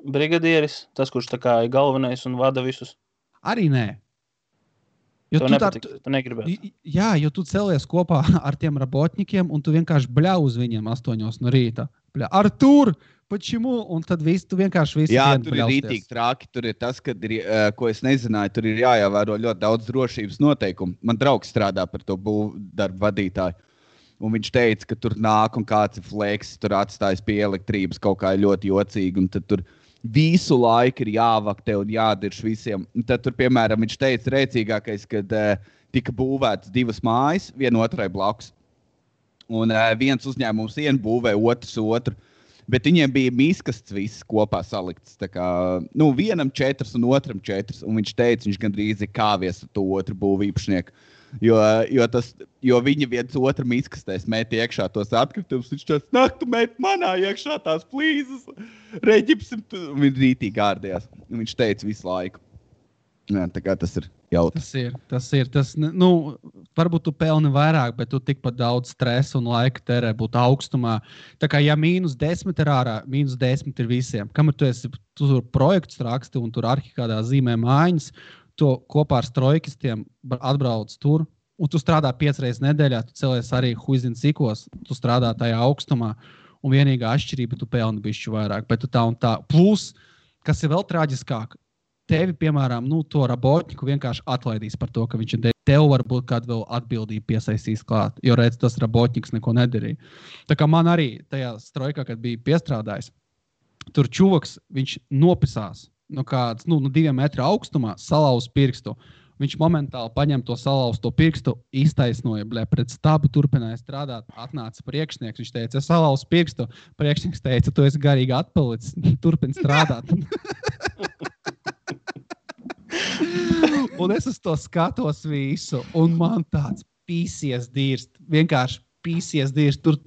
brigadieris, tas, kurš tā kā ir galvenais un vada visus. Arī nē. Jo tu negribētu. Jā, jo tu celies kopā ar tiem robotņikiem un tu vienkārši bļau uz viņiem 8 no rīta. Artur, pačimu? Un tad tu vienkārši visu dienu tur ir rītīgi trāki. Tur ir tas, kad ir, ko es nezināju, tur ir jāievēro ļoti daudz drošības noteikumu. Man draugs strādā par to būvdarbu vadītāju. Un viņš teica, ka tur nāk un kāds ir fleks, tur atstājas pie elektrības kaut kā ļoti jocīgi. Un tad tur visu laiku ir jāvaktē un jādirš visiem. Un tad tur, piemēram, viņš teica rēcīgākais, kad tika būvētas 2 mājas, viena otrai blakus. Un viens uzņēmums būvē otru. Bet viņiem bija miskasts viss kopā salikts. Tā kā, vienam 4 un otram 4. Un viņš teica, viņš gandrīz ir kāvies ar to otru būvīpašnieku. Jo viņi viens otram izkastēs met iekšā tos atkritumus. Viņš teica, nāk, tu met manā iekšā tās plīzes. Reģipsim, viņš rītīgi ārdījās. Viņš teica visu laiku. Jā, tā kā tas ir jautrs. Tas ir. Varbūt tu pelni vairāk, bet tu tikpat daudz stresa un laika terē būt augstumā. Tā kā ja -10 ir ārā, -10 ir visiem. Kamēr tu tur projektus raksti un tur arhi kādā zīmē mājiņas, to kopā ar strojkistiem atbrauc tur, un tu strādā 5 reizes nedēļā, tu celies arī huizin cikos, tu strādā tajā augstumā, un vienīgā atšķirība tu pelni bišķi vairāk, bet tu tā un tā. Plus, kas ir vēl traģiskāk, tevi, piemēram, to robotņiku vienkārši atlaidīs par to, ka viņš ir tev varbūt kādu vēl atbildību piesaistīs klāt, jo redz, tas robotņiks neko nedarīja. Tā kā man arī tajā strojkā, kad bija piestrādājis, tur čuvaks, viņš nopisās no kāds, 2 metru augstumā, salauz pirkstu. Viņš momentāli paņem to salauzto pirkstu, iztaisnoja, pret stabu turpināja strādāt, atnāca priekšnieks, viņš teica, es salauzu pirkstu, priekšnieks teica, tu esi garīgi atpalicis, turpini strādāt. Un es uz to skatos visu, un man tāds pīsies dirst, vienkārši pīsies dirst, tur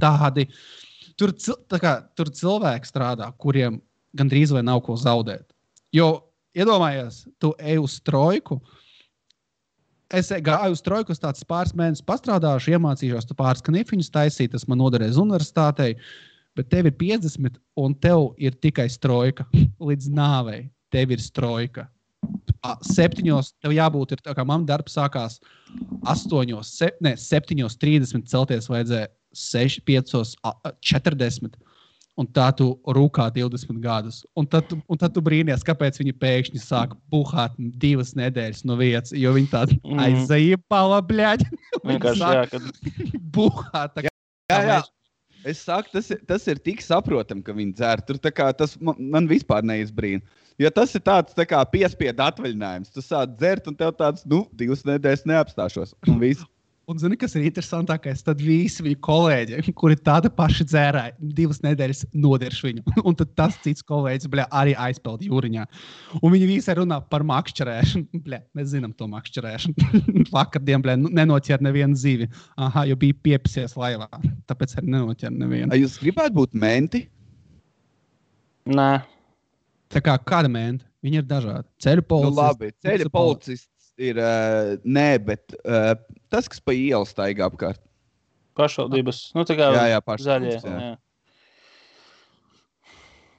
cilvēki strādā, kuriem gandrīz vai nav ko zaudēt. Jo, iedomājies, tu ej uz strojku, es gāju uz trojku, tāds pāris mēnešus pastrādāšu, iemācīšos tu pāris knifiņus taisīt, tas man noderēs universitātei, bet tev ir 50 un tev ir tikai strojka līdz nāvei. Tev ir strojka. 7 tev jābūt, tā kā man darbs sākās 7:30 celties vajadzēja 5:40. Un tā tu rūkā 20 gadus. Un tad tu brīnies, kāpēc viņi pēkšņi sāk buhāt 2 nedēļas no vietas, jo viņi tādi aizzaipala, bļaļ. Vienkārši jā, kad buhāt. Jā. Es saku, tas ir tik saprotam, ka viņi dzer. Tur tā kā tas man vispār neizbrīna. Jo tas ir tāds tā kā piespiedu atvaļinājums. Tu sāc dzert un tev tāds, 2 nedēļas neapstāšos. Un viss. Un zini, kas ir interesantākais? Tad visi viņu kolēģi, kuri tāda paši dzērāja, 2 nedēļas nodirš viņu. Un tad tas cits kolēģis, arī aizpeld jūriņā. Un viņi visi runā par makšķerēšanu. Mēs zinām to makšķerēšanu. Vakardien, nenoķer nevienu zīvi. Aha, jo bija piepisies laivā. Tāpēc arī nenoķer nevienu. Jūs gribētu būt menti? Nē. Tā kā kāda menta? Viņi ir dažādi. Ceļu policists. Labi, ceļu policists ir nē, bet tas, kas pa ielu staigā apkārt. Pašvaldības, nu tā kā Jā, zaļie. pašvaldības, jā. Jā.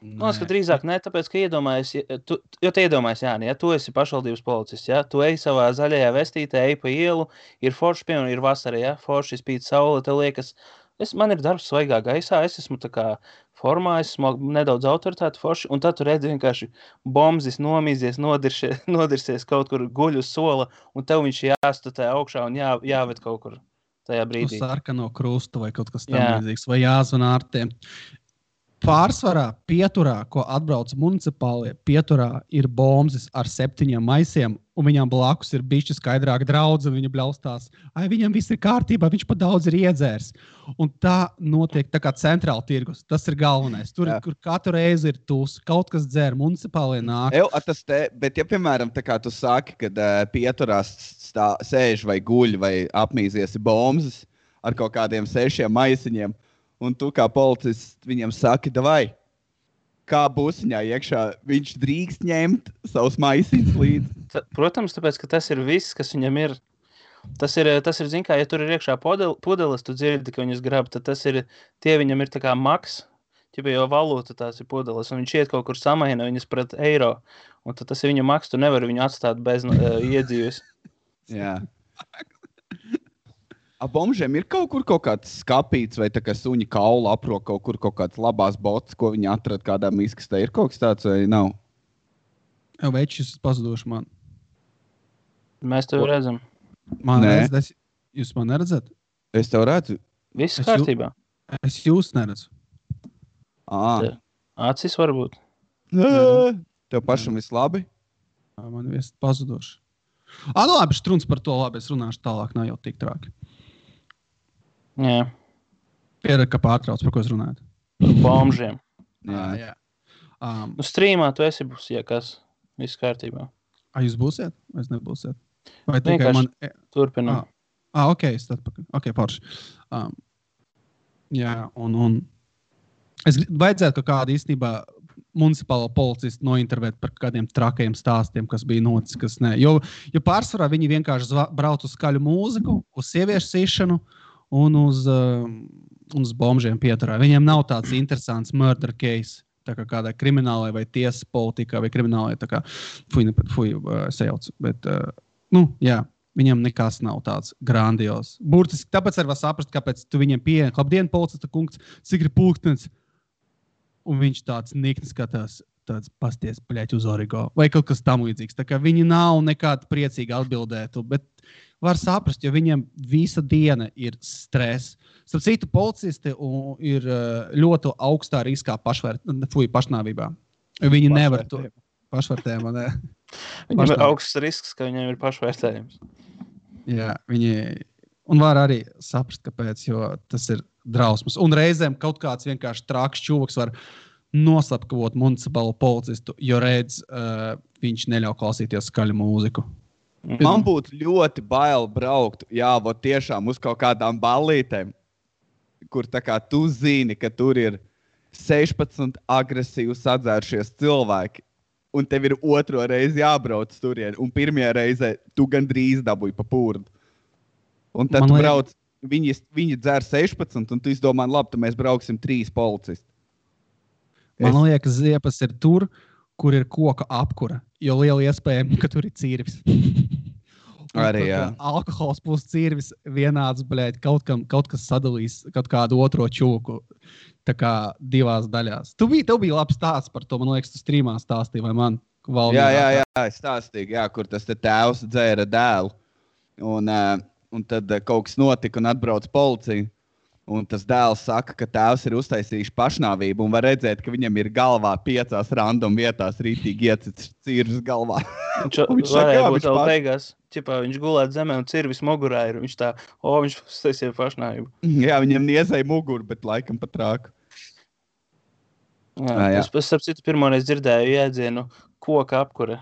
Man liekas, ka drīzāk ne, tāpēc, ka iedomājies, jo tu iedomājies, Jāni, ja tu esi pašvaldības policists, ja, tu ej savā zaļajā vestītē, ej pa ielu, ir forši, piemēram, ir vasara, ja, forši spīd saule, tev liekas, man ir darbs svaigā gaisā, es esmu tā kā formā, esmu nedaudz autoritāti forši, un tad tu redzi vienkārši bombzis nomīzies, nodirsies kaut kur guļ uz sola, un tev viņš jāstatē augšā un jāved kaut kur tajā brīdī. Uz sarkano krustu vai kaut kas tam līdzīgs, vai jāzvan ārtiem. Pārsvarā pieturā, ko atbrauc municipālie, pieturā ir bombzis ar 7 maisiem, un viņam blakus ir bišķi skaidrāk draudze, un viņa bļaustās. Viņam viss ir kārtībā, viņš pa daudz ir iedzērs. Un tā notiek tā kā centrāla tirgus. Tas ir galvenais. Tur, kur katru reizi ir tūs, kaut kas dzer, municipālie nāk. Bet ja, piemēram, tā kā tu saki, kad pieturās sēž vai guļ vai apmīzies bombzis ar kaut kādiem 6 maisiņiem, un tu kā policists viņam saki, davai, kā busiņā iekšā viņš drīkst ņemt savus maisiņus līdzi. Protams, tāpēc, ka tas ir viss, kas viņam ir. Tas ir zin kā, ja tur ir iekšā pudeles, tu dzirdi, ka viņas grab, tad tie viņam ir tā kā maks, jo valūta tās ir pudeles, un viņš iet kaut kur samaina viņas pret eiro, un tad tas ir viņa maks, tu nevari viņu atstāt bez iedzīves. Jā. Bombžiem ir kaut kāds skapīts vai tā kā suņa kaula aprok kaut kāds labās botas, ko viņi atrada kādā miskastē. Ir kaut kas tāds vai nav? Večus pazuduši man. Mēs tev redzam. Man redzat? Jūs man neredzat? Es tev redzu. Viss kārtībā. Es jūs neredzu. Acis varbūt. Tev pašam viss labi? Man viss pazuduši. Nu labi, struns par to labi. Es runāšu tālāk, nav jau tik trāki. Jā. Piered, ka pārtrauc, par ko es runāju. Bombžiem. Jā. Strīmā tu esi būs, ja kas, viss kārtībā. Jūs būsiet? Vai es nebūsiet? Vai tikai man... Turpinām. Ok, parši. Jā, un es vajadzētu kādu īstenībā municipālo policistu nointervēt par kādiem trakajiem stāstiem, kas bija noticis, kas ne. Jo pārsvarā viņi vienkārši brauc uz skaļu mūziku, uz sieviešu sīšanu, un uz bombžiem pieturā. Viņiem nav tāds interesants murder case, tā kā kādai kriminālai vai tiesas politikā vai kriminālai, tā kā sajauc. Bet, jā, viņam nekas nav tāds grandios. Burtiski, tāpēc arī var saprast, kāpēc tu viņiem pieejam, labdien, policista kungs, cik ir pulkstens, un viņš tāds nikni skatās, tāds pasties, bļaļ, uz origo, vai kaut kas tam līdzīgs. Tā kā viņi nav nekādi priecīgi atbildētu, bet var saprast, jo viņiem visa diena ir stress. Starp citu, policisti ir ļoti augstā riskā pašnāvībā. Viņi nevar to pašvērtējumā. Ne? Viņam ir augsts risks, ka viņiem ir pašvērtējums. Jā, un var arī saprast, kāpēc, jo tas ir drausmas. Un reizēm kaut kāds vienkārši trāks čūvaks var noslapkavot municipālo policistu, jo redz, viņš neļauj klausīties skaļu mūziku. Man būtu ļoti bail braukt, tiešām uz kaut kādām ballītēm, kur tā kā tu zini, ka tur ir 16 agresīvi sadzēršies cilvēki, un tev ir otro reizi jābrauc turien, un pirmajā reizē tu gandrīz dabūji pa pūrdu. Un tad tu brauc, viņi dzer 16, un tu izdomā, labi, tad mēs brauksim 3 policisti. Man liekas, ziepas ir tur, kur ir koka apkura, jo liela iespējama, ka tur ir cīrvis. Arī, jā. Alkohols plus cīrvis vienāds, bļaļ, kaut kas sadalīs kaut kādu otro čūku, tā kā 2 daļās. Tev bija labs stāsts par to, man liekas, tu strīmā stāstīji, vai man? Jā, es stāstīju, kur tas tēvs dzēra dēlu, un tad kaut kas notika un atbrauc policija. Un tas dēls saka, ka tēvs ir uztaisījis pašnāvību un var redzēt, ka viņam ir galvā 5 random vietās rītīgi iecits cirvis galvā. Viņš varēja būt vēl beigās, viņš gulēt zemē un cirvis mugurā ir. Viņš viņš uztaisīja pašnāvību. Jā, viņam niezēja muguru, bet laikam pat trāku. Jā. Es starp citu pirmoreiz dzirdēju jēdzienu koka apkure.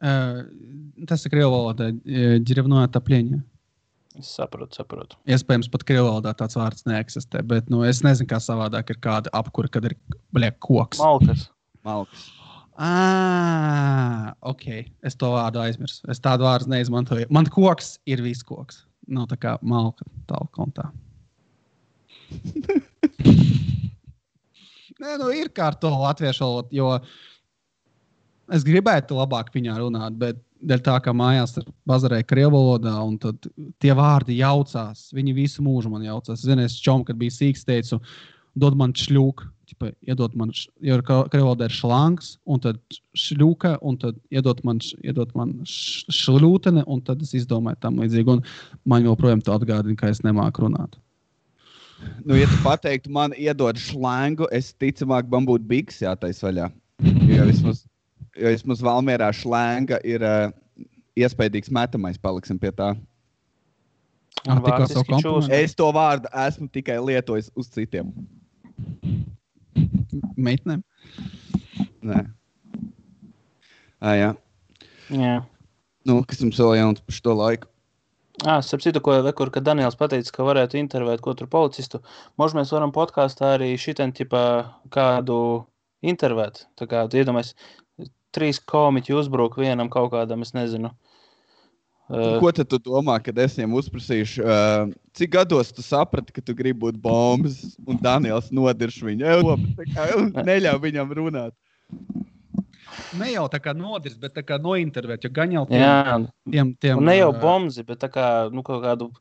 Tas ir krievu valodā, ģirevnoja taplieņa. Es saprotu. Iespējams, pat krievu valodā tāds vārds neeksistē, bet es nezinu, kā savādāk ir kāda apkura, kad ir koks. Malkas. Ok. Es to vārdu aizmirsu. Es tādu vārdu neizmantoju. Man koks ir viskoks. Nav tā kā malka tālu kontā. Nē, nu ir kā ar to latviešu valodu, jo es gribētu labāk viņā runāt, bet dēļ tā, ka mājās bazarēja krievu valodā, un tad tie vārdi jaucās. Viņi visu mūžu man jaucās. Zinu, es čom, kad biju sīks, teicu, dod man šļūku. Iedod man, jo krievu valodā ir šlangs, un tad šļūka, un tad iedod man šļūtene, un tad es izdomāju tam līdzīgi. Un man joprojām to atgādina, ka es nemāku runāt. Nu, ja tu pateiktu, man iedod šlangu, es ticamāk man būtu bigs jātais vaļā. Jo vismaz Valmierā šlanga ir iespējīgs metamais, paliksim pie tā. Es to vārdu esmu tikai lietojis uz citiem. Meitnēm? Nē. Jā. Jā. Nu, kas jums vēl jauns par šo laiku? Starp citu, kad Daniels pateica, ka varētu intervēt katru policistu, možda mēs varam podkāstā arī šitien ķipā kādu intervēt. Tā kā, tu iedomājies, 3 komiķi uzbruk vienam kaut kādam, es nezinu. Ko tad tu domā, kad es viņiem uzprasīšu, cik gados tu saprati, ka tu gribi būt bombas, un Daniels nodirš viņu, neļauj viņam runāt? Ne jau tā kā nodirš, bet tā kā nointervēt, jo gan jau tiem un ne jau bombzi, bet tā kā, nu, kaut kādu,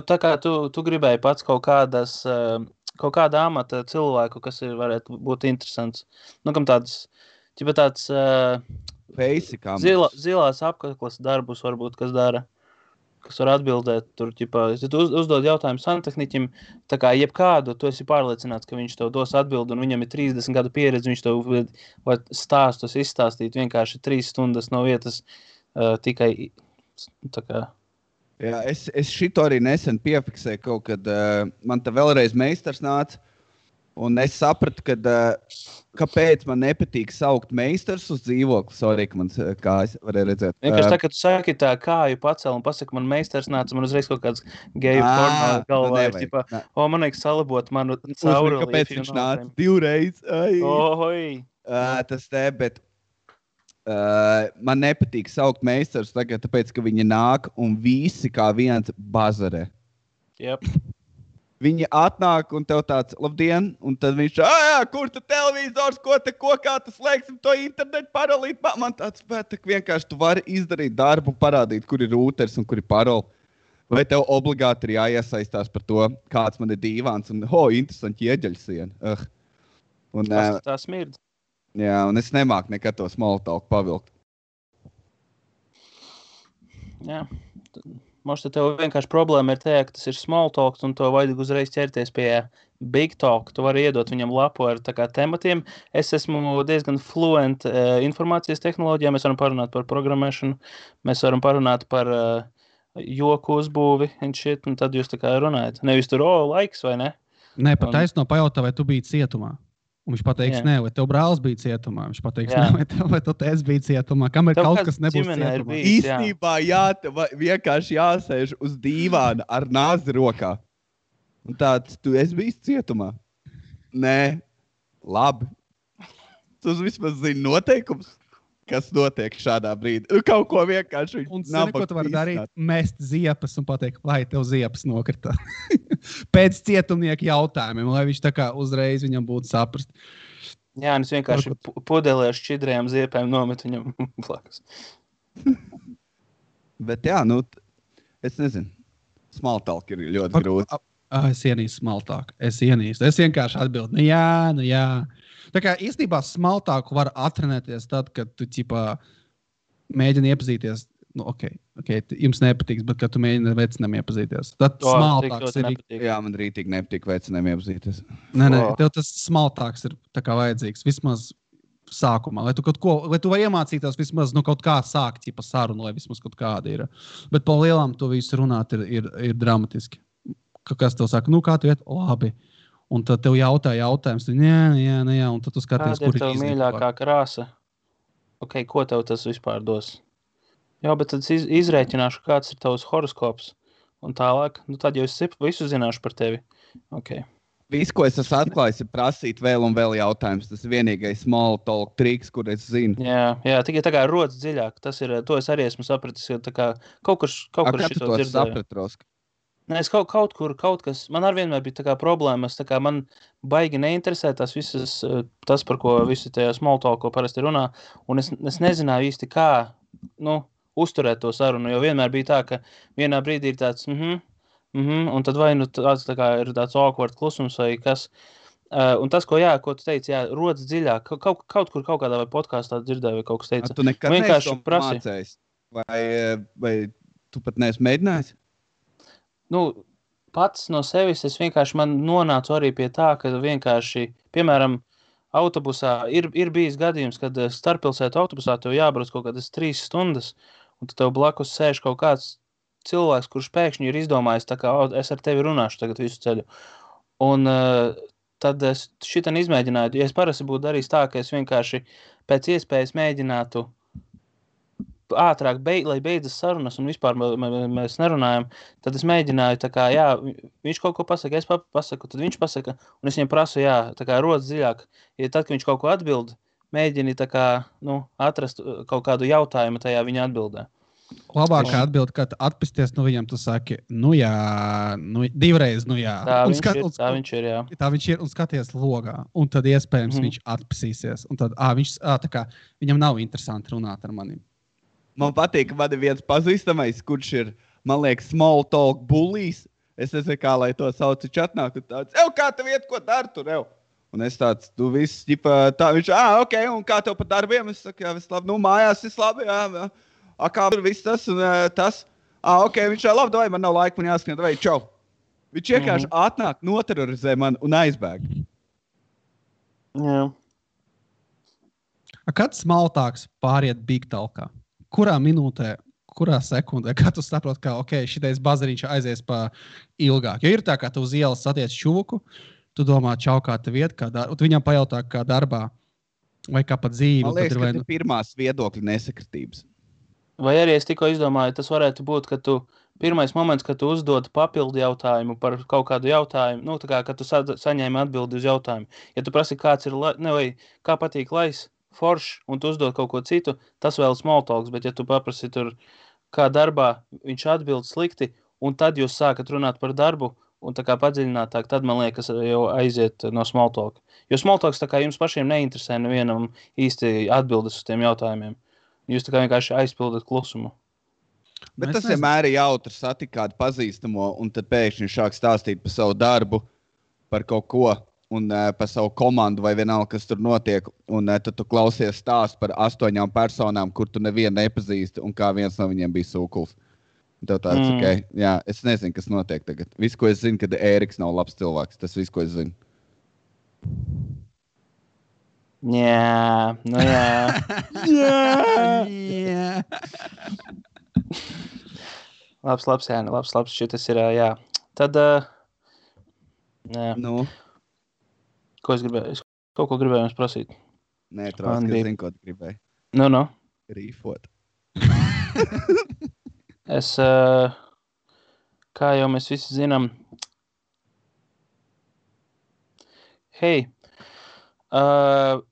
tā kā tu gribēji pats kaut kāda amata cilvēku, kas varētu būt interesants. Nu, kam tāds zilās apkaklas darbus varbūt, kas dara, kas var atbildēt tur, ja tu uzdod jautājumu santehniķim, tā kā jebkādu, tu esi pārliecināts, ka viņš tev dos atbildi, un viņam ir 30 gadu pieredze, viņš tev var stāstus izstāstīt vienkārši 3 stundas no vietas tikai tā kā. Jā, es šito arī nesen piefiksēju kaut, kad man te vēlreiz meistars nāca, un es sapratu, kāpēc man nepatīk saukt meistars uz dzīvokli. Sorry, ka man kājas varēja redzēt. Vienkārši tā, ka tu saki tā kāju pacel un pasaka, man meistars nāca, man uzreiz kaut kāds geju porno galvā ir, ķipā, man vajag salabot manu cauruli. Kāpēc viņš nāca 2 reizes? Tas te, bet man nepatīk saukt meistars tagad, tāpēc, ka viņi nāk un visi kā viens bazarē. Yep. Viņi atnāk un tev tāds, labdien, un tad viņš, kur tu televizors, ko kā tu slēgsim to internetu parolīt? Man tāds, bet vienkārši tu vari izdarīt darbu, parādīt, kur ir rūters un kur ir paroli. Vai tev obligāti ir jāiesaistās par to, kāds man ir dīvāns un, interesanti ieģeļsiena. Tā smird. Jā, un es nemāku nekad to small talk pavilkt. Jā, možda tev vienkārši problēma ir tajā, ka tas ir small talk, un to vajag uzreiz ķerties pie big talk. Tu vari iedot viņam lapu ar tā kā tematiem. Es esmu diezgan fluent informācijas tehnoloģijā. Mēs varam parunāt par programmēšanu, mēs varam parunāt par joku uzbūvi un shit, un tad jūs tā kā runājat. Nevis tur, laiks vai ne? Nē, pat taisno pajautā, vai tu biji cietumā. Un viņš pateiks, nē, vai tev brālis bija cietumā. Viņš pateiks, nē, vai tu teiks bija cietumā. Kamēr tev kaut kas nebūs cietumā. Īstenībā vienkārši jāsēž uz dīvāna ar nāzi rokā. Un tāds, tu esi bijis cietumā? Nē, labi. Tu vismaz zini noteikums, kas notiek šādā brīdī. Kaut ko vienkārši un zini, ko tu vari darīt? Mest ziepas un pateikt, vai tev ziepas nokrita. Pēc cietumnieka jautājumiem, lai viņš tā kā uzreiz viņam būtu saprast. Jā, un es vienkārši pudelē ar šķidrējām ziepēm nometu viņam blakus. Bet jā, nu, es nezinu. Small talk ir ļoti grūti. Es ienīstu small talk. Es vienkārši atbildu, nu jā. Tā kā īstenībā small talk var atrenēties tad, kad tu mēģini iepazīties. Nu, ok, jums nepatiks, bet kad tu mēģini ar vecinām iepazīties. Tad small talks ir... Jā, man rītīgi nepatīk vecinām iepazīties. Nē, tev tas small talks ir tā kā vajadzīgs. Vismaz sākumā, lai tu vari iemācīties vismaz kaut kā sākt sarunu, lai vismaz kaut kāda ir. Bet pa lielām to visu runāt ir dramatiski. Kas tev saka, kā tu iet? Labi. Un tad tev jautājums, jā, un tad tu skaties, kur ir tev mīļākā krāsa? Ok, ko tev tas vispār dos? Jā, bet tad izrēķināšu, kāds ir tavs horoskops. Un tālāk, tad jau es visu zināšu par tevi. Ok. Viss, ko es esmu atklājis, ir prasīt vēl un vēl jautājumus. Tas ir vienīgais small talk triks, kur es zinu. Jā, tikai tā kā rodas dziļāk. Tas ir, to es arī esmu sapratis, jo tā kā kaut kur Kā tu šito to dzirdēju. saprati, Roska? Nē, es kaut kas, man ar vienmēr bija tā kā problēmas, tā kā man baigi neinteresē tās visas, tas, par ko visi tajā small talk, ko parasti runā, un es nezināju īsti kā, uzturēt to sarunu, jo vienmēr bija tā, ka vienā brīdī ir tāds, un tad vai tāds tā kā ir tāds awkward klusums vai kas, un tas, ko tu teici, rodas dziļāk, kaut kur kaut kādā vai podkāstā dzirdēju, vai kaut kas teica. Tu nekad vienkārši neesi to mācējis? Vai tu pat neesi mēģinājis? Pats no sevis es vienkārši man nonācu arī pie tā, ka vienkārši, piemēram, autobusā ir bijis gadījums, kad starppilsētu autobusā tev jābrauc kaut kādas 3 stundas, un tev blakus sēž kaut kāds cilvēks, kurš pēkšņi ir izdomājis, tā kā es ar tevi runāšu tagad visu ceļu. Un tad es šitan izmēģināju, ja es parasti būtu darījis tā, ka es vienkārši pēc iespējas mēģinātu ātrāk, lai beidzas sarunas un vispār mēs nerunājam, tad es mēģināju, tā kā, viņš kaut ko pasaka, es pasaku, tad viņš pasaka, un es viņam prasu, tā kā rodas dziļāk. Ja tad, kad viņš kaut ko atbild, mēģini tā kā, atrast kaut kādu jautājumu tajā viņa atbildē. Labākā atbilde, kad atpesties no viņam, tu saki, divreiz, jā. Tā viņš ir, jā. Tā viņš ir un skaties logā, un tad iespējams viņš atpesīsies, un tad tā kā viņam nav interesanti runāt ar manim. Man patīk, ka man ir viens pazīstamais, kurš ir, man liekas, small talk bullies. Es nezinu, kā lai to sauc, čatnāk, un tāds, kā tev iet, ko dari tur, Un es tāds, tu viss, tā viņš, ok, un kā tev pa darbiem? Es saku, viss labi, mājās viss labi, kā tur viss tas un tas. Ok, viņš labi, davai, man nav laika, man jāskrien, davai, čau. Viņš vienkārši atnāk, noterorizē man un aizbēg. Jā. Kad smaltāks pāriet big talkā? Kurā minūtē, kurā sekundē, kā tu saproti, ka šitais bazariņš aizies pa ilgāk? Jo ir tā, kā tu uz ielas satiec čuvuku, tu domā, čau, kā tev iet, tu viņam pajautā, kā darbā, vai kā pa dzīvi. Man liekas, ka ir pirmās viedokļa nesakritības. Vai arī es tikko izdomāju, tas varētu būt, ka pirmais moments, kad tu uzdod papildu jautājumu par kaut kādu jautājumu, tā kā, kad tu saņēmi atbildi uz jautājumu. Ja tu prasi, kāds ir, vai kā patīk lais, foršs, un tu uzdod kaut ko citu, tas vēl small talks, bet ja tu paprasi tur, kā darbā, viņš atbild slikti, un tad jūs sākat runāt par darbu, un tā kā padziļinātāk, tad, man liekas, jau aiziet no small talk. Jo small talks tā kā jums pašiem neinteresē nevienam īsti atbildes uz tiem jautājumiem. Jūs tā kā vienkārši aizpildat klusumu. Bet tas vienmēr ir jautri satikt kādu pazīstamo, un tad pēkšņi sāk stāstīt par savu darbu, par kaut ko, un par savu komandu vai vienalga, kas tur notiek, un tad tu klausies stāstu par 8 personām, kur tu nevienu nepazīsti, un kā viens no viņiem bija sūkuls. Tev tāds, es nezinu, kas notiek tagad. Viss, ko es zinu, kad Ēriks nav labs cilvēks. Tas viss, ko es zinu. Jā. Labs, Jāni, labs. Šitas ir, jā. Tad, ko es gribēju? Es kaut ko gribēju jums prasīt. Nē, Troski, es zinu, ko tu gribēji. Rīfot. Es, kā jau mēs visi zinām,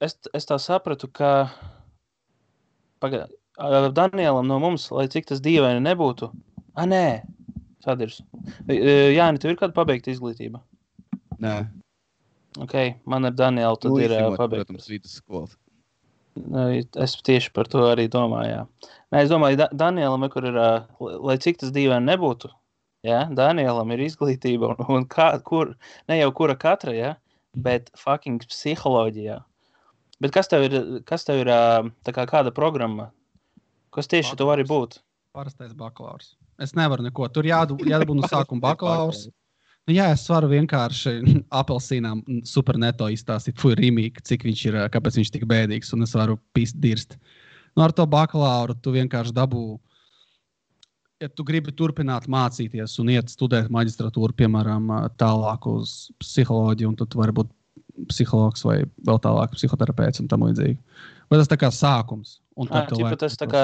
es tā sapratu, ka Danielam no mums, lai cik tas dīvaini nebūtu, nē, Sadirs. Jāni, tev ir kāda pabeigta izglītība? Nē. Ok, man ar Danielu tad ir pabeigta. Protams, vidusskolas. Es tieši par to arī domāju, jā. Nē, es domāju, Danielam, kur ir, lai cik tas dīvaini nebūtu, Danielam ir izglītība, un ne jau kura katra, bet fucking psiholoģijā. Bet kas tev ir tā kā kāda programma? Kas tieši tu vari būt? Parastais bakalaurs. Es nevaru neko. Tur jādabū no sākuma bakalaurs. Es varu vienkārši apelsīnām super neto izstāstīt, Rīmīgi, cik viņš ir, kāpēc viņš tik bēdīgs, un es varu dirst. Ar to bakalauru tu vienkārši dabū, ja tu gribi turpināt mācīties un iet studēt maģistratūru, piemēram, tālāk uz psiholoģiju, un tad tu vari būt psihologs vai vēl tālāk psihoterapeits un tam līdzīgi. Vai tas tā kā sākums. Un tad Tas tā kā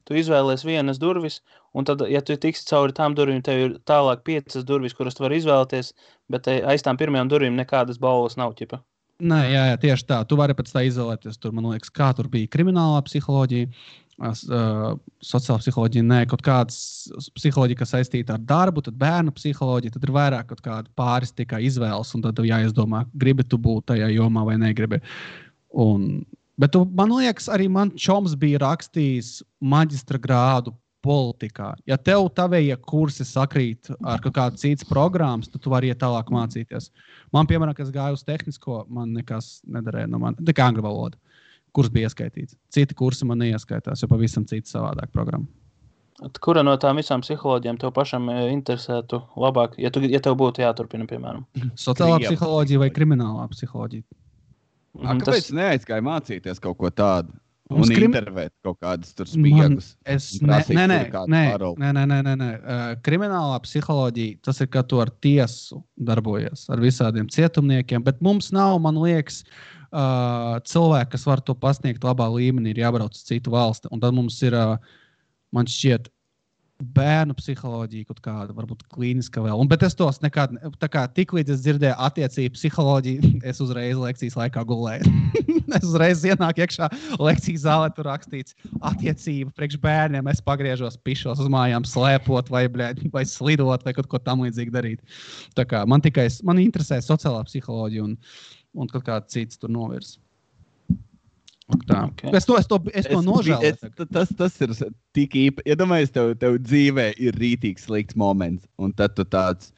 tu izvēlies vienas durvis, un tad, ja tu tiksi cauri tām durvīm, tev ir tālāk 5 durvis, kuras tu vari izvēlēties, bet aiz tām pirmajām durvīm nekādas balvas nav, ķipa. Nē, jā, tieši tā. Tu vari pēc tā izvēlēties. Tur, man liekas, kā tur bija kriminālā psiholoģija, sociālā psiholoģija, nē, kaut kādas psiholoģija, kas saistīta ar darbu, tad bērnu psiholoģija, tad ir vairāk kaut kāda pāris tikai izvēles, un tad tev jāizdomā, gribi tu būt tajā jomā vai negribi. Bet man liekas, arī man čoms bija rakstījis maģistra grādu politikā. Ja tev tavējie kursi sakrīt ar kaut kādu citas programmas, tad tu vari iet tālāk mācīties. Man, piemēram, kas gāja uz tehnisko, man nekas nedarēja no man. Tikai angļu valoda. Kurs bija ieskaitīts. Citi kursi man neieskaitās, jo pavisam cita savādāk programma. Kura no tām visām psiholoģijām tev pašam interesētu labāk, ja tev būtu jāturpina, piemēram? Sociālā psiholoģija vai kriminālā psiholoģija? Kāpēc neaizgāja mācīties kaut ko tādu? Un intervēt kaut kādas tur spiegus. Nē. Kriminālā psiholoģija, tas ir, ka tu ar tiesu darbojies, ar visādiem cietumniekiem, bet mums nav, man liekas, cilvēki, kas var to pasniegt labā līmenī, ir jābrauc uz citu valsti. Un tad mums ir, man šķiet, bērnu psiholoģija kaut kāda, varbūt klīniska vēl. Bet es tos nekad, tā kā tik līdz es dzirdēju attiecību psiholoģiju, es uzreiz lekcijas laikā gulēju. Es uzreiz ienāku iekšā lekcijas zālē, tur rakstīts attiecība priekš bērniem. Es pagriežos, pišos uz mājām, slēpot vai slidot vai kaut ko tam līdzīgi darīt. Tā kā man interesē sociālā psiholoģija un kaut kāda cits tur novirs. Okay. Es to nožēloju. Tas ir tik īpaši. Ja domājies, tev dzīvē ir rītīgs slikts moments, un tad tu tāds,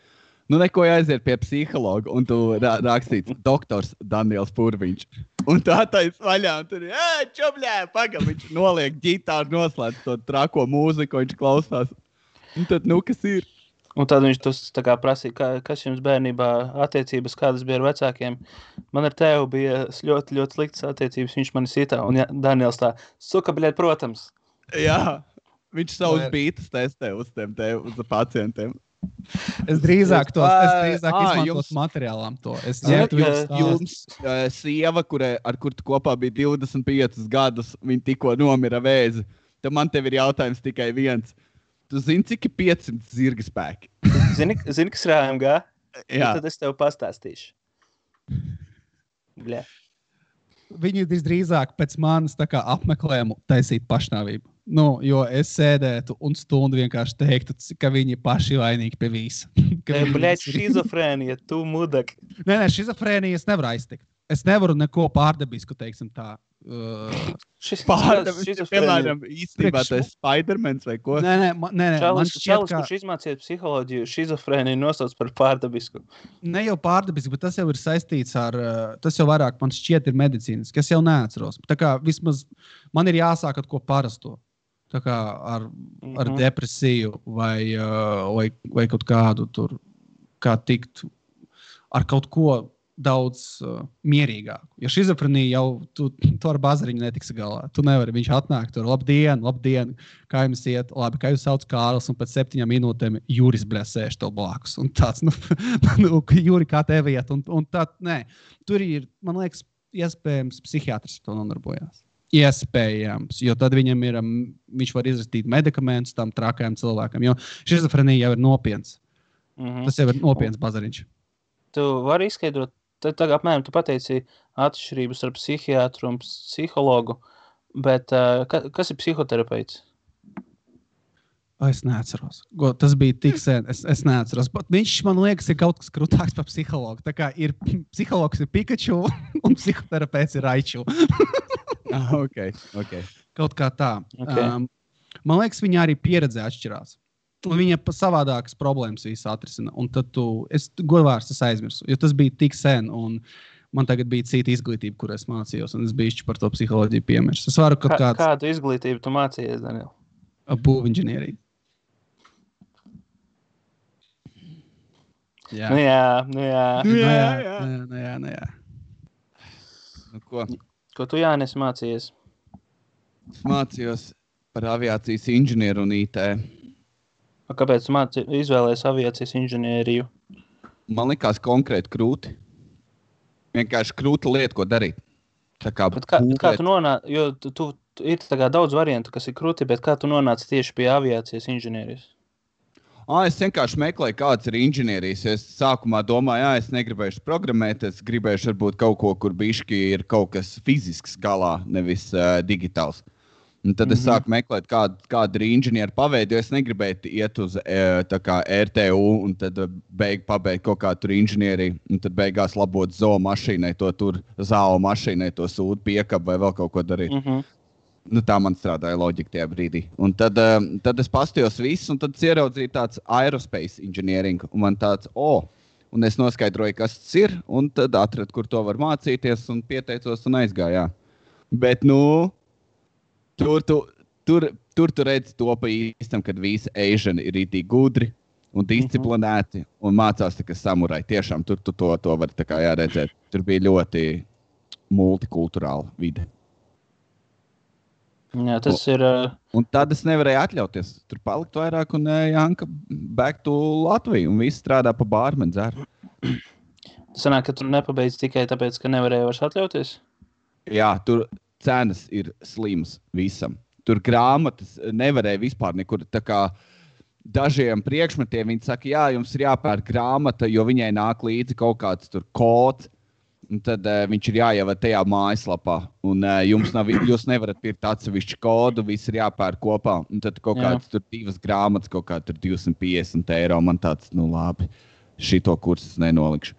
neko jāaiziet pie psihologa, un tu rakstīts doktors Daniels Purviņš. Un tu attais vaļā, un tur čobļē, pagam, viņš noliek ģitāru, noslēdz to trako mūziku, viņš klausās. Un tad, kas ir? Un tad viņš tā kā prasīja, kas jums bērnībā attiecības, kādas bija ar vecākiem. Man ar tevu bija ļoti, ļoti sliktas attiecības, viņš mani sitā. Un Daniels tā, suka, bļēt, protams. Jā, viņš savus bītas testē uz pacientiem. Es drīzāk izmantos materiālām to. Jums sieva, ar kur tu kopā bija 25 gadus, viņa tikko nomira vēzi. Tad man tev ir jautājums tikai viens. Tu zini, cik ir 500 zirga spēki? Zini, kas rājam gā? Jā. Tad es tev pastāstīšu. Bļē. Viņi drīzāk pēc manis tā kā apmeklējumu taisīt pašnāvību. Jo es sēdētu un stundu vienkārši teiktu, ka viņi paši vainīgi pie visa. Bļēt, šizofrēnija, tu mudak. Nē, šizofrēnija es nevaru aiztikt. Es nevaru neko pārdabisku, teiksim tā. Piemēram, īstenībā tas Spidermans vai ko? Nē, Čalis, kurš izmācīja psiholoģiju, šizofrēniju nosauc par pārdabisku. Ne jau pārdabisku, bet tas jau ir saistīts ar, tas jau vairāk man šķiet ir medicīnas, kas jau neatceros. Tā kā vismaz man ir jāsāk ar ko parasto. Tā kā ar depresiju vai kaut kādu tur, kā tikt ar kaut ko daudz mierīgāku. Jo šizofrenija jau tu ar bazariņu netiksi galā. Tu nevari, viņš atnāk tur, labdien, kā jums iet, labi, kā jūs sauc Kārlis, un pēc 7 minūtēm Juris, sēž tev blakus. Un tāds, Juri, kā tev iet? Un tā, nē, tur ir, man liekas, iespējams, psihiatrs to nodarbojās. Iespējams, jo tad viņam ir, viņš var izrakstīt medikamentus tam trakajam cilvēkam, jo šizofrenija jau ir nopiens. Tas jau ir nopiens bazariņš. Tu vari izskaidrot, tad apmēram tu pateici atšķirības ar psihiatru un psihologu, bet kas ir psihoterapeits? Es neatceros. Tas bija tik sen, es neatceros. Bet viņš, man liekas, ir kaut kas krūtāks par psihologu. Tā kā ir psihologs ir Pikachu un psihoterapeits ir Raichu. Okay. Kaut kā tā. Okay. Man liekas, viņa arī pieredze atšķirās. Un viņa savādākas problēmas visu atrisina. Un tad godvārds es aizmirsu, jo tas bija tik sen, un man tagad bija cita izglītība, kur es mācījos, un es bišķi par to psiholoģiju piemirst. Es varu kaut kāds... Kādu izglītību tu mācījies, Daniel? Būvinženieriju. Jā. Nu jā. Ko tu, Jānis, mācījies? Es mācījos par aviācijas inženieru un IT. Kāpēc tu izvēlējies aviācijas inženieriju? Man likās konkrēti krūti. Vienkārši krūta lieta, ko darīt. Bet kā tu nonāci, jo tu ir tā kā daudz variantu, kas ir krūti, bet kā tu nonāci tieši pie aviācijas inženierijas? Es vienkārši meklēju, kāds ir inženierijas. Es sākumā domāju, es negribēšu programmēt, es gribēšu varbūt kaut ko, kur bišķi ir kaut kas fizisks galā, nevis digitāls. Un tad es sāku meklēt, kāda ir inženiera paveidi, jo es negribēju iet uz tā kā RTU un tad pabeigt kaut kā tur inženieriju, un tad beigās labot zoo mašīnai, zāo mašīnai to sūdu piekabu vai vēl kaut ko darīt. Tā man strādāja loģika tajā brīdī. Un tad es pastījos visu, un tad ieraudzīju tāds aerospace engineering, un man tāds, un es noskaidroju, kas tas ir, un tad atradu, kur to var mācīties, un pieteicos un aizgāju, jā. Bet, tur redz to pa īstam, kad visi Asiani ir itī gudri un disciplinēti, un mācās tā kā samurai. Tiešām, tur to var tā kā jāredzēt. Tur bija ļoti multikulturāla vide. Jā, tas ir... Un tad es nevarēju atļauties. Tur palikt vairāk un Janka back to Latviju un visi strādā pa bārmeni dzeru. Sanāk, ka tu nepabeidz tikai tāpēc, ka nevarēja vairs atļauties? Jā, tur cenas ir slims visam. Tur grāmatas nevarēja vispār nekur. Tā kā dažiem priekšmetiem viņi saka, jā, jums ir jāpērk grāmata, jo viņai nāk līdzi kaut kāds tur kods. Un tad viņš ir jāievada tajā mājaslapā. Un jūs nevarat pirkt atsevišķu kodu, viss ir jāpērk kopā. Un tad kaut kāds tur 2 grāmatas, kaut kā tur 250 €. Man tāds, labi, šito kursus nenolikšu.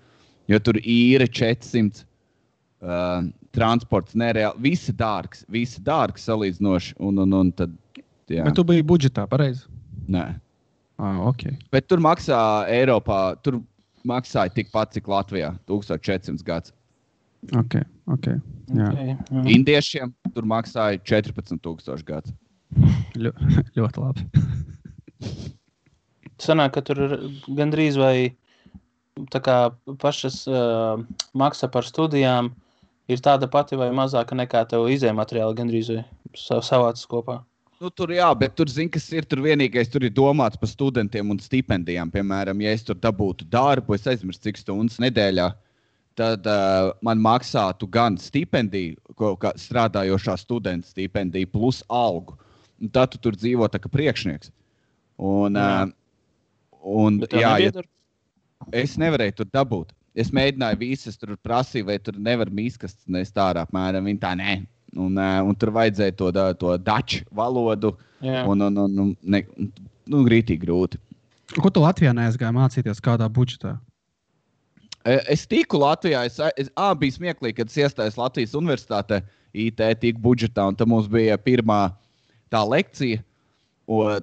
Jo tur īre 400, transports nereāli, visi dārgs salīdzinoši. Un tad, jā. Bet tu biji budžetā, pareizi? Nē. Ok. Bet tur maksā Eiropā, tur maksāja tikpat, cik Latvijā, 1400 gads. Ok. Jā. Okay. Indiešiem tur maksāja 14,000 gads. Ļoti labi. Sanāk, ka tur gandrīz vai tā kā pašas maksa par studijām ir tāda pati vai mazāka nekā tev izējumateriāli gandrīz vai savācas kopā? Tur jā, bet tur zini, kas ir tur vienīgais, tur ir domāts par studentiem un stipendijām. Piemēram, ja es tur dabūtu darbu, es aizmirstu cik stundas nedēļā, tad man maksātu gan stipendiju, kā strādājošā studenta stipendiju, plus algu. Un tad tu tur dzīvo tā kā priekšnieks. Es nevarēju tur dabūt. Es mēģināju visas, tur prasīju, vai tur nevar mīskastas nest ārā, apmēram, viņi tā nē. Un tur vajadzēja to daču valodu, grītīgi grūti. Ko tu Latvijā neaizgāji mācīties kādā budžetā? Es tiku Latvijā, bija smieklīgi, kad es iestājos Latvijas universitātē, IT tiku budžetā, un tad mums bija pirmā tā lekcija,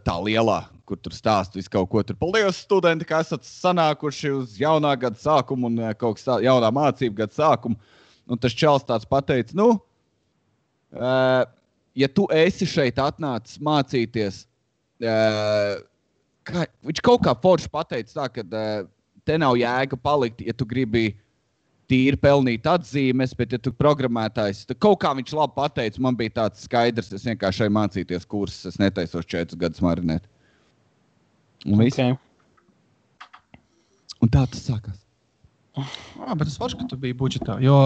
tā lielā, kur tur stāst visu kaut ko. Tur paldies studenti, ka esat sanākuši uz jaunā gada sākumu un kaut kas jaunā mācību gada sākumu. Un tas čels tāds pateica, ja tu esi šeit atnācis mācīties, viņš kaut kā forši pateica tā, ka te nav jēga palikt, ja tu gribi tīri pelnīt atzīmes, bet ja tu programmētājs, tad kaut kā viņš labi pateica, man bija tāds skaidrs, es vienkārši mācīties kursus, es netaisos 4 gadus marinēt. Un viss. Okay. Un tā tas sākās. Bet es varu, ka tu biji budžetā, jo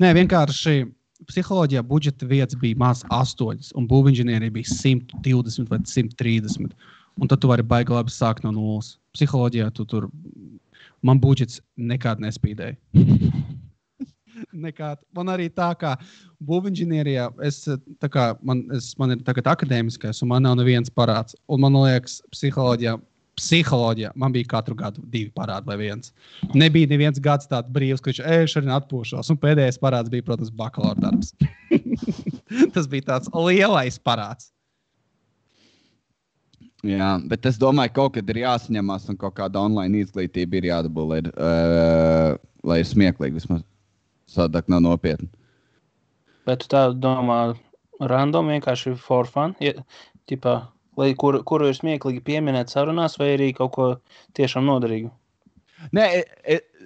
vienkārši psiholoģijā budžeta vietas bija maz 8, un būvinženierija bija 120 vai 130. Un tad tu vari baigi labi sākt no 0. Psiholoģijā man budžets nekād nespīdēja. Nekād. Man arī tā kā būvinženierijā, man ir tagad akadēmiskais, un man nav neviens parāds. Un man liekas, psiholoģijā man bija katru gadu 2 parādi vai 1. Nebija neviens gads tāds brīvs, ka viņš šodien atpūšos. Un pēdējais parāds bija, protams, bakalaura darbs. Tas bija tāds lielais parāds. Jā, bet es domāju, kaut kad ir jāsaņemās un kaut kāda online izglītība ir jādabū, lai ir smieklīgi vismaz. Sadāk nav nopietni. Bet tu tā domā random, vienkārši for fun? Kuru ir smieklīgi pieminēt sarunās vai arī kaut ko tiešām noderīgu? Nē,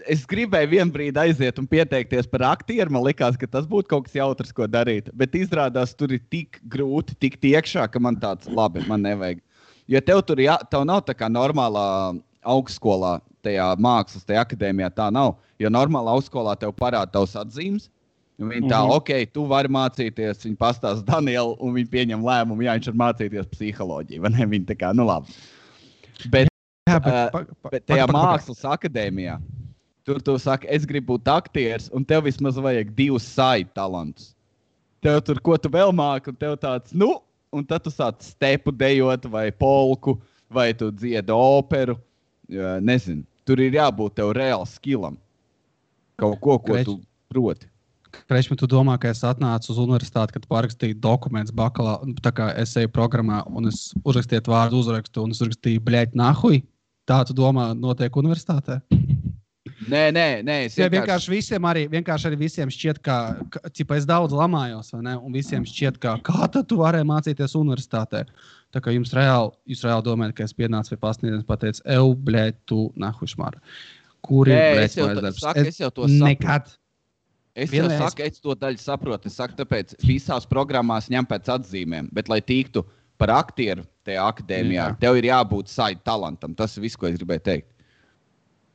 es gribēju vienu brīdi aiziet un pieteikties par aktieru. Man likās, ka tas būtu kaut kas jautrs, ko darīt. Bet izrādās, tur ir tik grūti tikt iekšā, ka man tāds labi, man nevajag. Jo tev nav tā kā normālā augstskolā, tajā mākslas, tajā akadēmijā tā nav. Jo normālā augstskolā tev parāda tavs atzīmes, Viņi tā, tu vari mācīties, viņi pastāsta Danielu, un viņi pieņem lēmumu, viņš var mācīties psiholoģiju, vai ne? Viņi tā kā, labi. Bet tajā mākslas akadēmijā, tur tu saki, es gribu būt aktieris, un tev vismaz vajag 2 side talantus. Tev tur, ko tu vēl māki, un tev tāds, un tad tu sāc stepu dejot, vai polku, vai tu dziedi operu, nezinu. Tur ir jābūt tev reāli skillam. Kaut ko tu proti. Krešmi, tu domā, ka es atnācu uz universitāti, kad parakstīju dokumentus tā kā es eju programmā, un es uzrakstīju vārdu uzrakstu, un es uzrakstīju, bļēt, nahuj? Tā tu domā notiek universitātē? Nē. Vienkārši arī visiem šķiet, ka es daudz lamājos, vai ne? Un visiem šķiet, kā tad tu varēji mācīties universitātē? Tā kā jūs reāli domājat, ka es pienācu pie pasniedzējiem, pateicu, bļēt, tu nahuj šmāra. Kur ir bļēt mājas darbs? Es jau to saprotu. Nekad. Es jau saku, es to daļu saprotu. Es saku, tāpēc visās programmās ņem pēc atzīmēm. Bet, lai tiktu par aktieru tajā akadēmijā, tev ir jābūt side talantam. Tas ir viss, ko es gribēju teikt.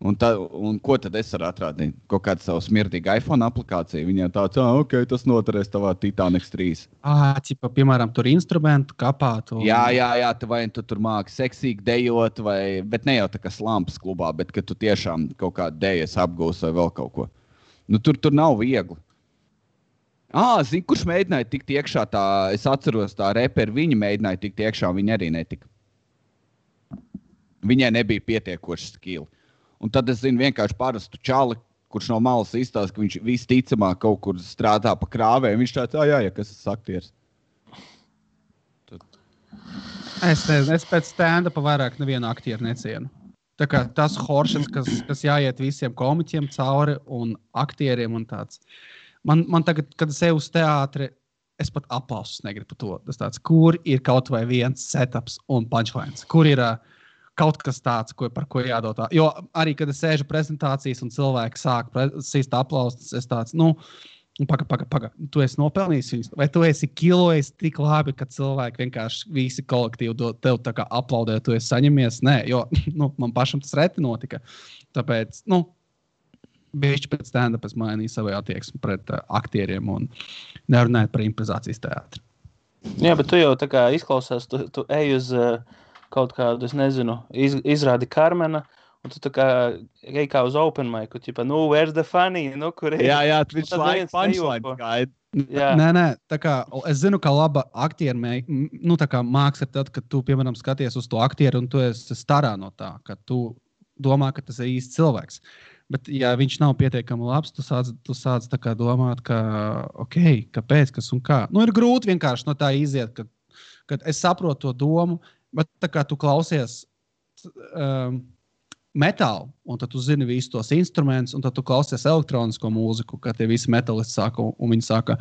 Un ko tad es varu atrādīt? Kaut kādu savu smirdīgu iPhone aplikāciju. Viņiem tāds, tas noturēs tavā Titanic 3. Piemēram, tur instrumentu kapāt. Jā, vai tu tur māki seksīgi dejot, bet ne jau tā kā slampas klubā, bet ka tu tiešām kaut kādu dejas apgūsi vai vēl kaut ko. Tur nav viegli. Zini, kurš mēģināja tikt iekšā tā, es atceros tā reperi, viņi mēģināja tikt iekšā, viņi arī netika. Viņai nebija pietiekoši skili. Un tad es zinu vienkārši parastu čali, kurš no malas izstāsta, ka viņš visticamāk kaut kur strādā pa krāvēm. Viņš tāds, kas es aktieris. Es pēc stand-upa vairāk nevienu aktieru necienu. Tā kā tas horšens, kas jāiet visiem komiķiem cauri un aktieriem un tāds. Man tagad, kad es eju uz teātri, es pat aplausus negribu par to. Tas tāds, kur ir kaut vai viens setups un punchlines? Kur ir kaut kas tāds, par ko jādod tā? Jo arī, kad es sēžu prezentācijas un cilvēki sāk sīst aplausus, es tāds, paga, tu esi nopelnījis viņus, vai tu esi kilojis tik labi, ka cilvēki vienkārši visi kolektīvi tev tā kā aplaudē, tu esi saņemies? Nē, jo man pašam tas reti notika. Tāpēc, bišķi pēc stand-up es mainīju savu attieksmi pret aktieriem un nerunājot par improvizācijas teātri. Jā, bet tu jau tā kā izklausās, tu ej uz kaut kādu, es nezinu, izrādi Karmena, un tu tā kā ej kā uz open micu, where's the funny, kur ir? Jā, viņš laik punchline gaida. Nē, tā kā es zinu, ka laba aktieri, tā kā māks ir tad, kad tu, piemēram, skaties uz to aktieru un tu esi starā no tā, ka tu domā, ka tas ir īsts cilvēks. Bet, ja viņš nav pietiekami labs, tu sāc tā kā domāt, ka, kāpēc, kas un kā. Ir grūti vienkārši no tā iziet, kad es saprotu to domu, bet tā kā tu klausies metālu, un tad tu zini visus tos instrumentus, un tad tu klausies elektronisko mūziku, kad tie visi metalisti sāka, un viņi sāka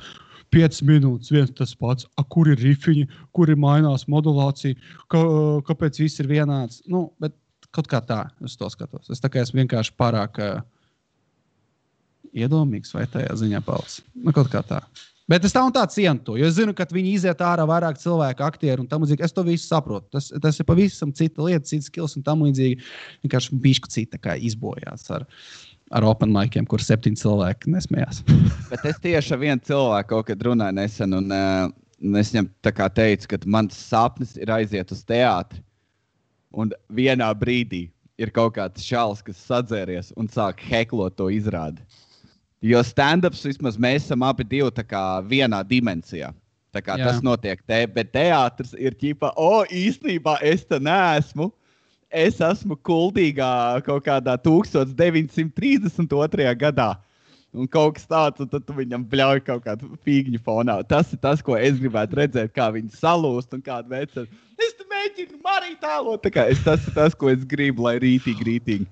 5 minūtes, viens tas pats, kur ir rifiņi, kur ir mainās modulācija, kāpēc viss ir vienāds. Bet kaut kā tā, es to skatos. Es tā kā esmu vienkārši pārāk iedomīgs vai tajā ziņā pals. Kaut kā tā. Bet es tā un tā cienu to, jo es zinu, ka viņi iziet ārā vairāk cilvēku, aktieri un tam līdzīgi. Es to visu saprotu. Tas ir pavisam cita lieta, cita skills un tam līdzīgi. Vienkārši bišķi cita kā izbojās ar open miciem, kur 7 cilvēki nesmējās. Bet es tieši ar vienu cilvēku kaut kad runāju nesen, un es viņam tā kā teicu, ka mans sapnis ir aiziet uz teātri. Un vienā brīdī ir kaut kāds čalis, kas sadzēries un sāk heklot to izrādi. Jo stand-ups vismaz mēs esam abi divi tā kā vienā dimensijā. Tā kā tas notiek bet teātris ir ķipa, īstenībā es te neesmu. Es esmu kuldīgā kaut kādā 1932. gadā. Un kaut kas tāds, un tad tu viņam bļauj kaut kādu fīgņu fonā. Tas ir tas, ko es gribētu redzēt, kā viņi salūst un kādu veicu. Es te mēģinu marīt tālot. Tas ir tas, ko es gribu, lai rītīgi.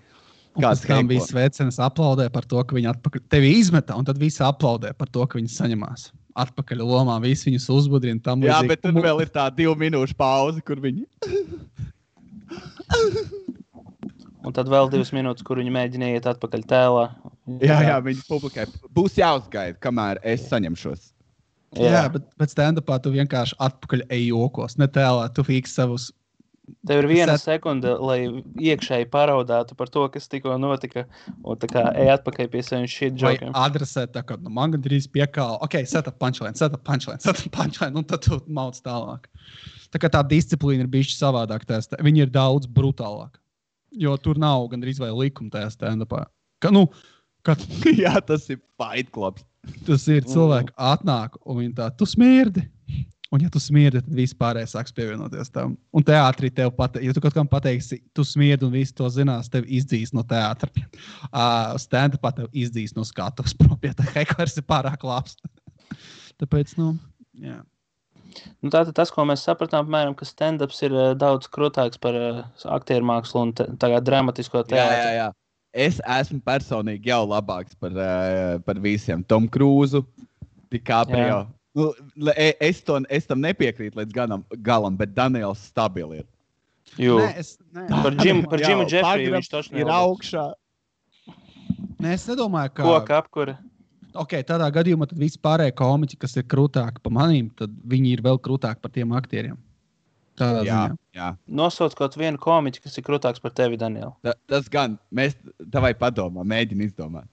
Kāds tam bija svecenis aplaudē par to, ka viņi atpakaļ tevi izmetā, un tad visi aplaudē par to, ka viņi saņemās atpakaļ lomā, visi viņus uzbudrina tam līdzīgi. Jā, bet tur vēl ir tā 2 minūšu pauze, kur viņi... Un tad vēl 2 minūtes, kur viņi mēģina iet atpakaļ tēlā. Jā, viņi publikai. Būs jāuzgaida, kamēr es saņemšos. Jā, bet stand-upā tu vienkārši atpakaļ ej jokos, ne tēlā, tu fīks savus Tev ir viena sekunde, lai iekšēji paraudātu par to, kas tikko notika, un tā kā ej atpakaļ pie saviem shit Vai jokiem. adresēt tā, ka man gandrīz piekāla. Ok, set up punchline, un tad tu mauc tālāk. Tā kā tā disciplīna ir bišķi savādāk testē. Viņi ir daudz brutālāk. Jo tur nav gandrīz vai likuma tajā stand-upā. Jā, tas ir Fight Clubs. Tas ir cilvēki atnāk, un viņi tā, tu smirdi. Un ja tu smirdi, tad visi pārējie sāks pievienoties tam. Un teātrī tev ja tu kaut kam pateiksi, tu smirdi un visi to zinās, tev izdzīs no teātra. Stand-upā tev izdzīs no skatuves prom, ja tā hekvers ir pārāk labs. Tāpēc, jā. Nu, tātad tas, ko mēs sapratām, piemēram, ka stand-ups ir daudz krūtāks par aktieru mākslu un tagad dramatisko teātru. Jā. Es esmu personīgi jau labāks par visiem. Tom Cruise, DiCaprio. Nu, es tam nepiekrītu līdz galam, bet Daniels stabili ir. Nē. Par Jimu Jeffriju viņš toši ir augšā. Nē, es nedomāju, ka... Koka apkura. Ok, tādā gadījumā tad visi pārējie komiķi, kas ir krūtāki par manīm, tad viņi ir vēl krūtāki par tiem aktieriem. Tādā ziņā. Jā. Nosauc kaut vienu komiķi, kas ir krūtāks par tevi, Daniel. Tas gan. Mēs tavai padomā, mēģini izdomāt.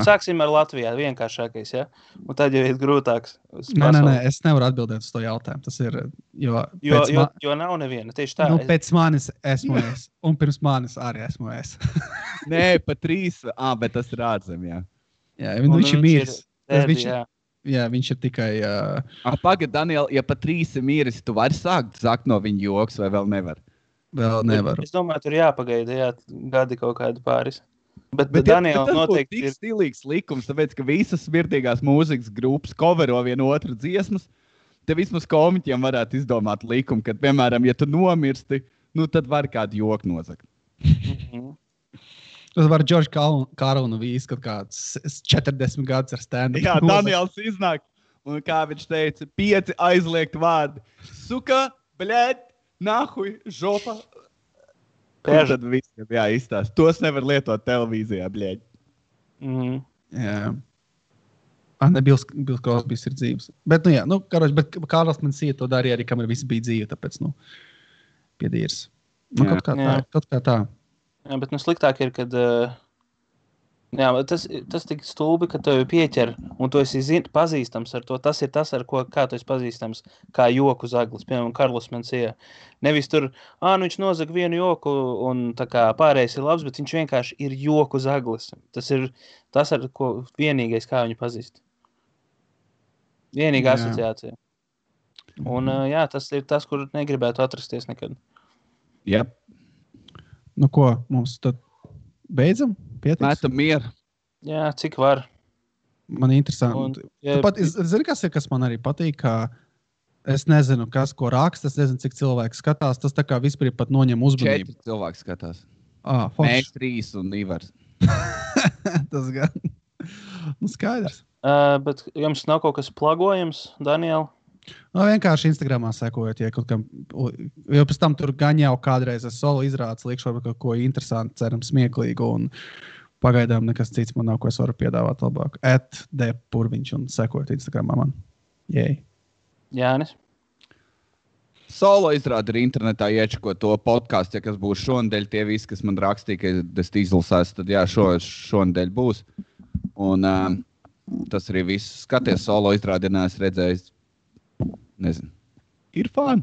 Sāksim ar Latvijā, vienkāršākais, ja? Un tad jau ir grūtāks. Nē, es nevaru atbildēt uz to jautājumu. Tas ir, jo nav neviena, tieši tā. Nu, pēc manis esmu es, un pirms manis arī esmu es. Nē, pa 3, bet tas ir ārzem, jā. Jā, viņš ir miris. Viņš ir tikai... Pagad, Daniel, ja pa 3 ir miris, tu vari sākt no viņa joks vai vēl nevar? Vēl nevaru. Es domāju, tur jāpagaida, gadi kaut kādu pāris. Bet Daniela noteikti ir stilīgs likums, tāpēc, ka visas smirdīgās mūzikas grupas covero vienu otru dziesmas. Te vismaz komiķiem varētu izdomāt likumu, ka, piemēram, ja tu nomirsti, tad var kādu joku nozagt. Tas var George Carlinu vīst, kad kāds 40 gadus ar stand-up. Jā, Daniels iznāk, un kā viņš teica, 5 aizliegt vārdi. Suka, bļēt, nahuj, žopa. Tad visiem izstāst. Tos nevar lietot televīzijā, bļēģi. Jā. Bills Crosbys ir dzīves. Bet, bet Kārlis man sīja to darīja arī, kamēr visi bija dzīvi, tāpēc, piedīrs. Kaut kā tā. Jā, bet sliktāk ir, kad... tas tik stulbi, ka tev pieķer, un tu esi pazīstams ar to. Tas ir tas, ar ko kā tu esi pazīstams, kā joku zaglis. Piemēram, Karlos Mencia. Nevis tur, viņš nozaga vienu joku, un tā kā pārējais ir labs, bet viņš vienkārši ir joku zaglis. Tas ir tas, ar ko vienīgais, kā viņu pazīst. Vienīga asociācija. Un tas ir tas, kur negribētu atrasties nekad. Yep. Nu ko, mums tad beidzam? Pietiks? Mētam mieru. Jā, cik var. Man interesanti. Zini, kas man arī patīk, ka es nezinu, ko raksta, es nezinu, cik cilvēki skatās. Tas tā kā vispār pat noņem uzmanību. 4 cilvēki skatās. Mēs 3 un Ivars. Tas gan. Skaidrs. Bet jums nav kaut kas plagojams, Daniel? Vienkārši Instagramā sekojot, ja kaut kam, jo pēc tam tur gan jau kādreiz es solo izrādes, liekšu varbūt kaut ko interesantu, ceram smieklīgu, un pagaidām nekas cits man nav, ko es varu piedāvāt labāk. @dpurviņš un sekojot Instagramā man. Jei. Jānis? Solo izrāda ir internetā iečako to podcastu, ja kas būs šonadēļ, tie visi, kas man rakstīja, ka es izlasās, tad jā, šonadēļ būs. Un tas arī viss. Skaties solo izrādinās, redzējis. Nezinu. Ir fani.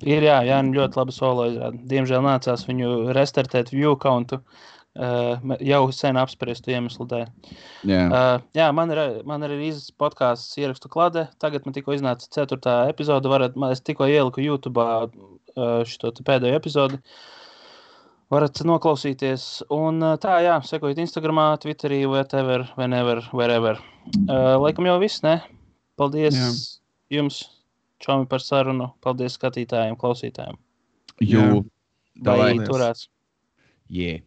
Ir, jā, ļoti labi solo izrāda. Diemžēl nācās viņu restartēt view countu jau sen apspriestu iemeslu dēļ. Jā, man ir izs podcasts ierakstu klade. Tagad man tikko iznāca 4. epizode. Es tikko ieliku YouTube'ā šito pēdējo epizodi. Varat noklausīties. Un sekojiet Instagramā, Twitterī, wherever. Laikam jau viss, ne? Paldies. Jā. Jums, Čomi, par sarunu. Paldies skatītājiem, klausītājiem. Jū. Vai turās. Yeah.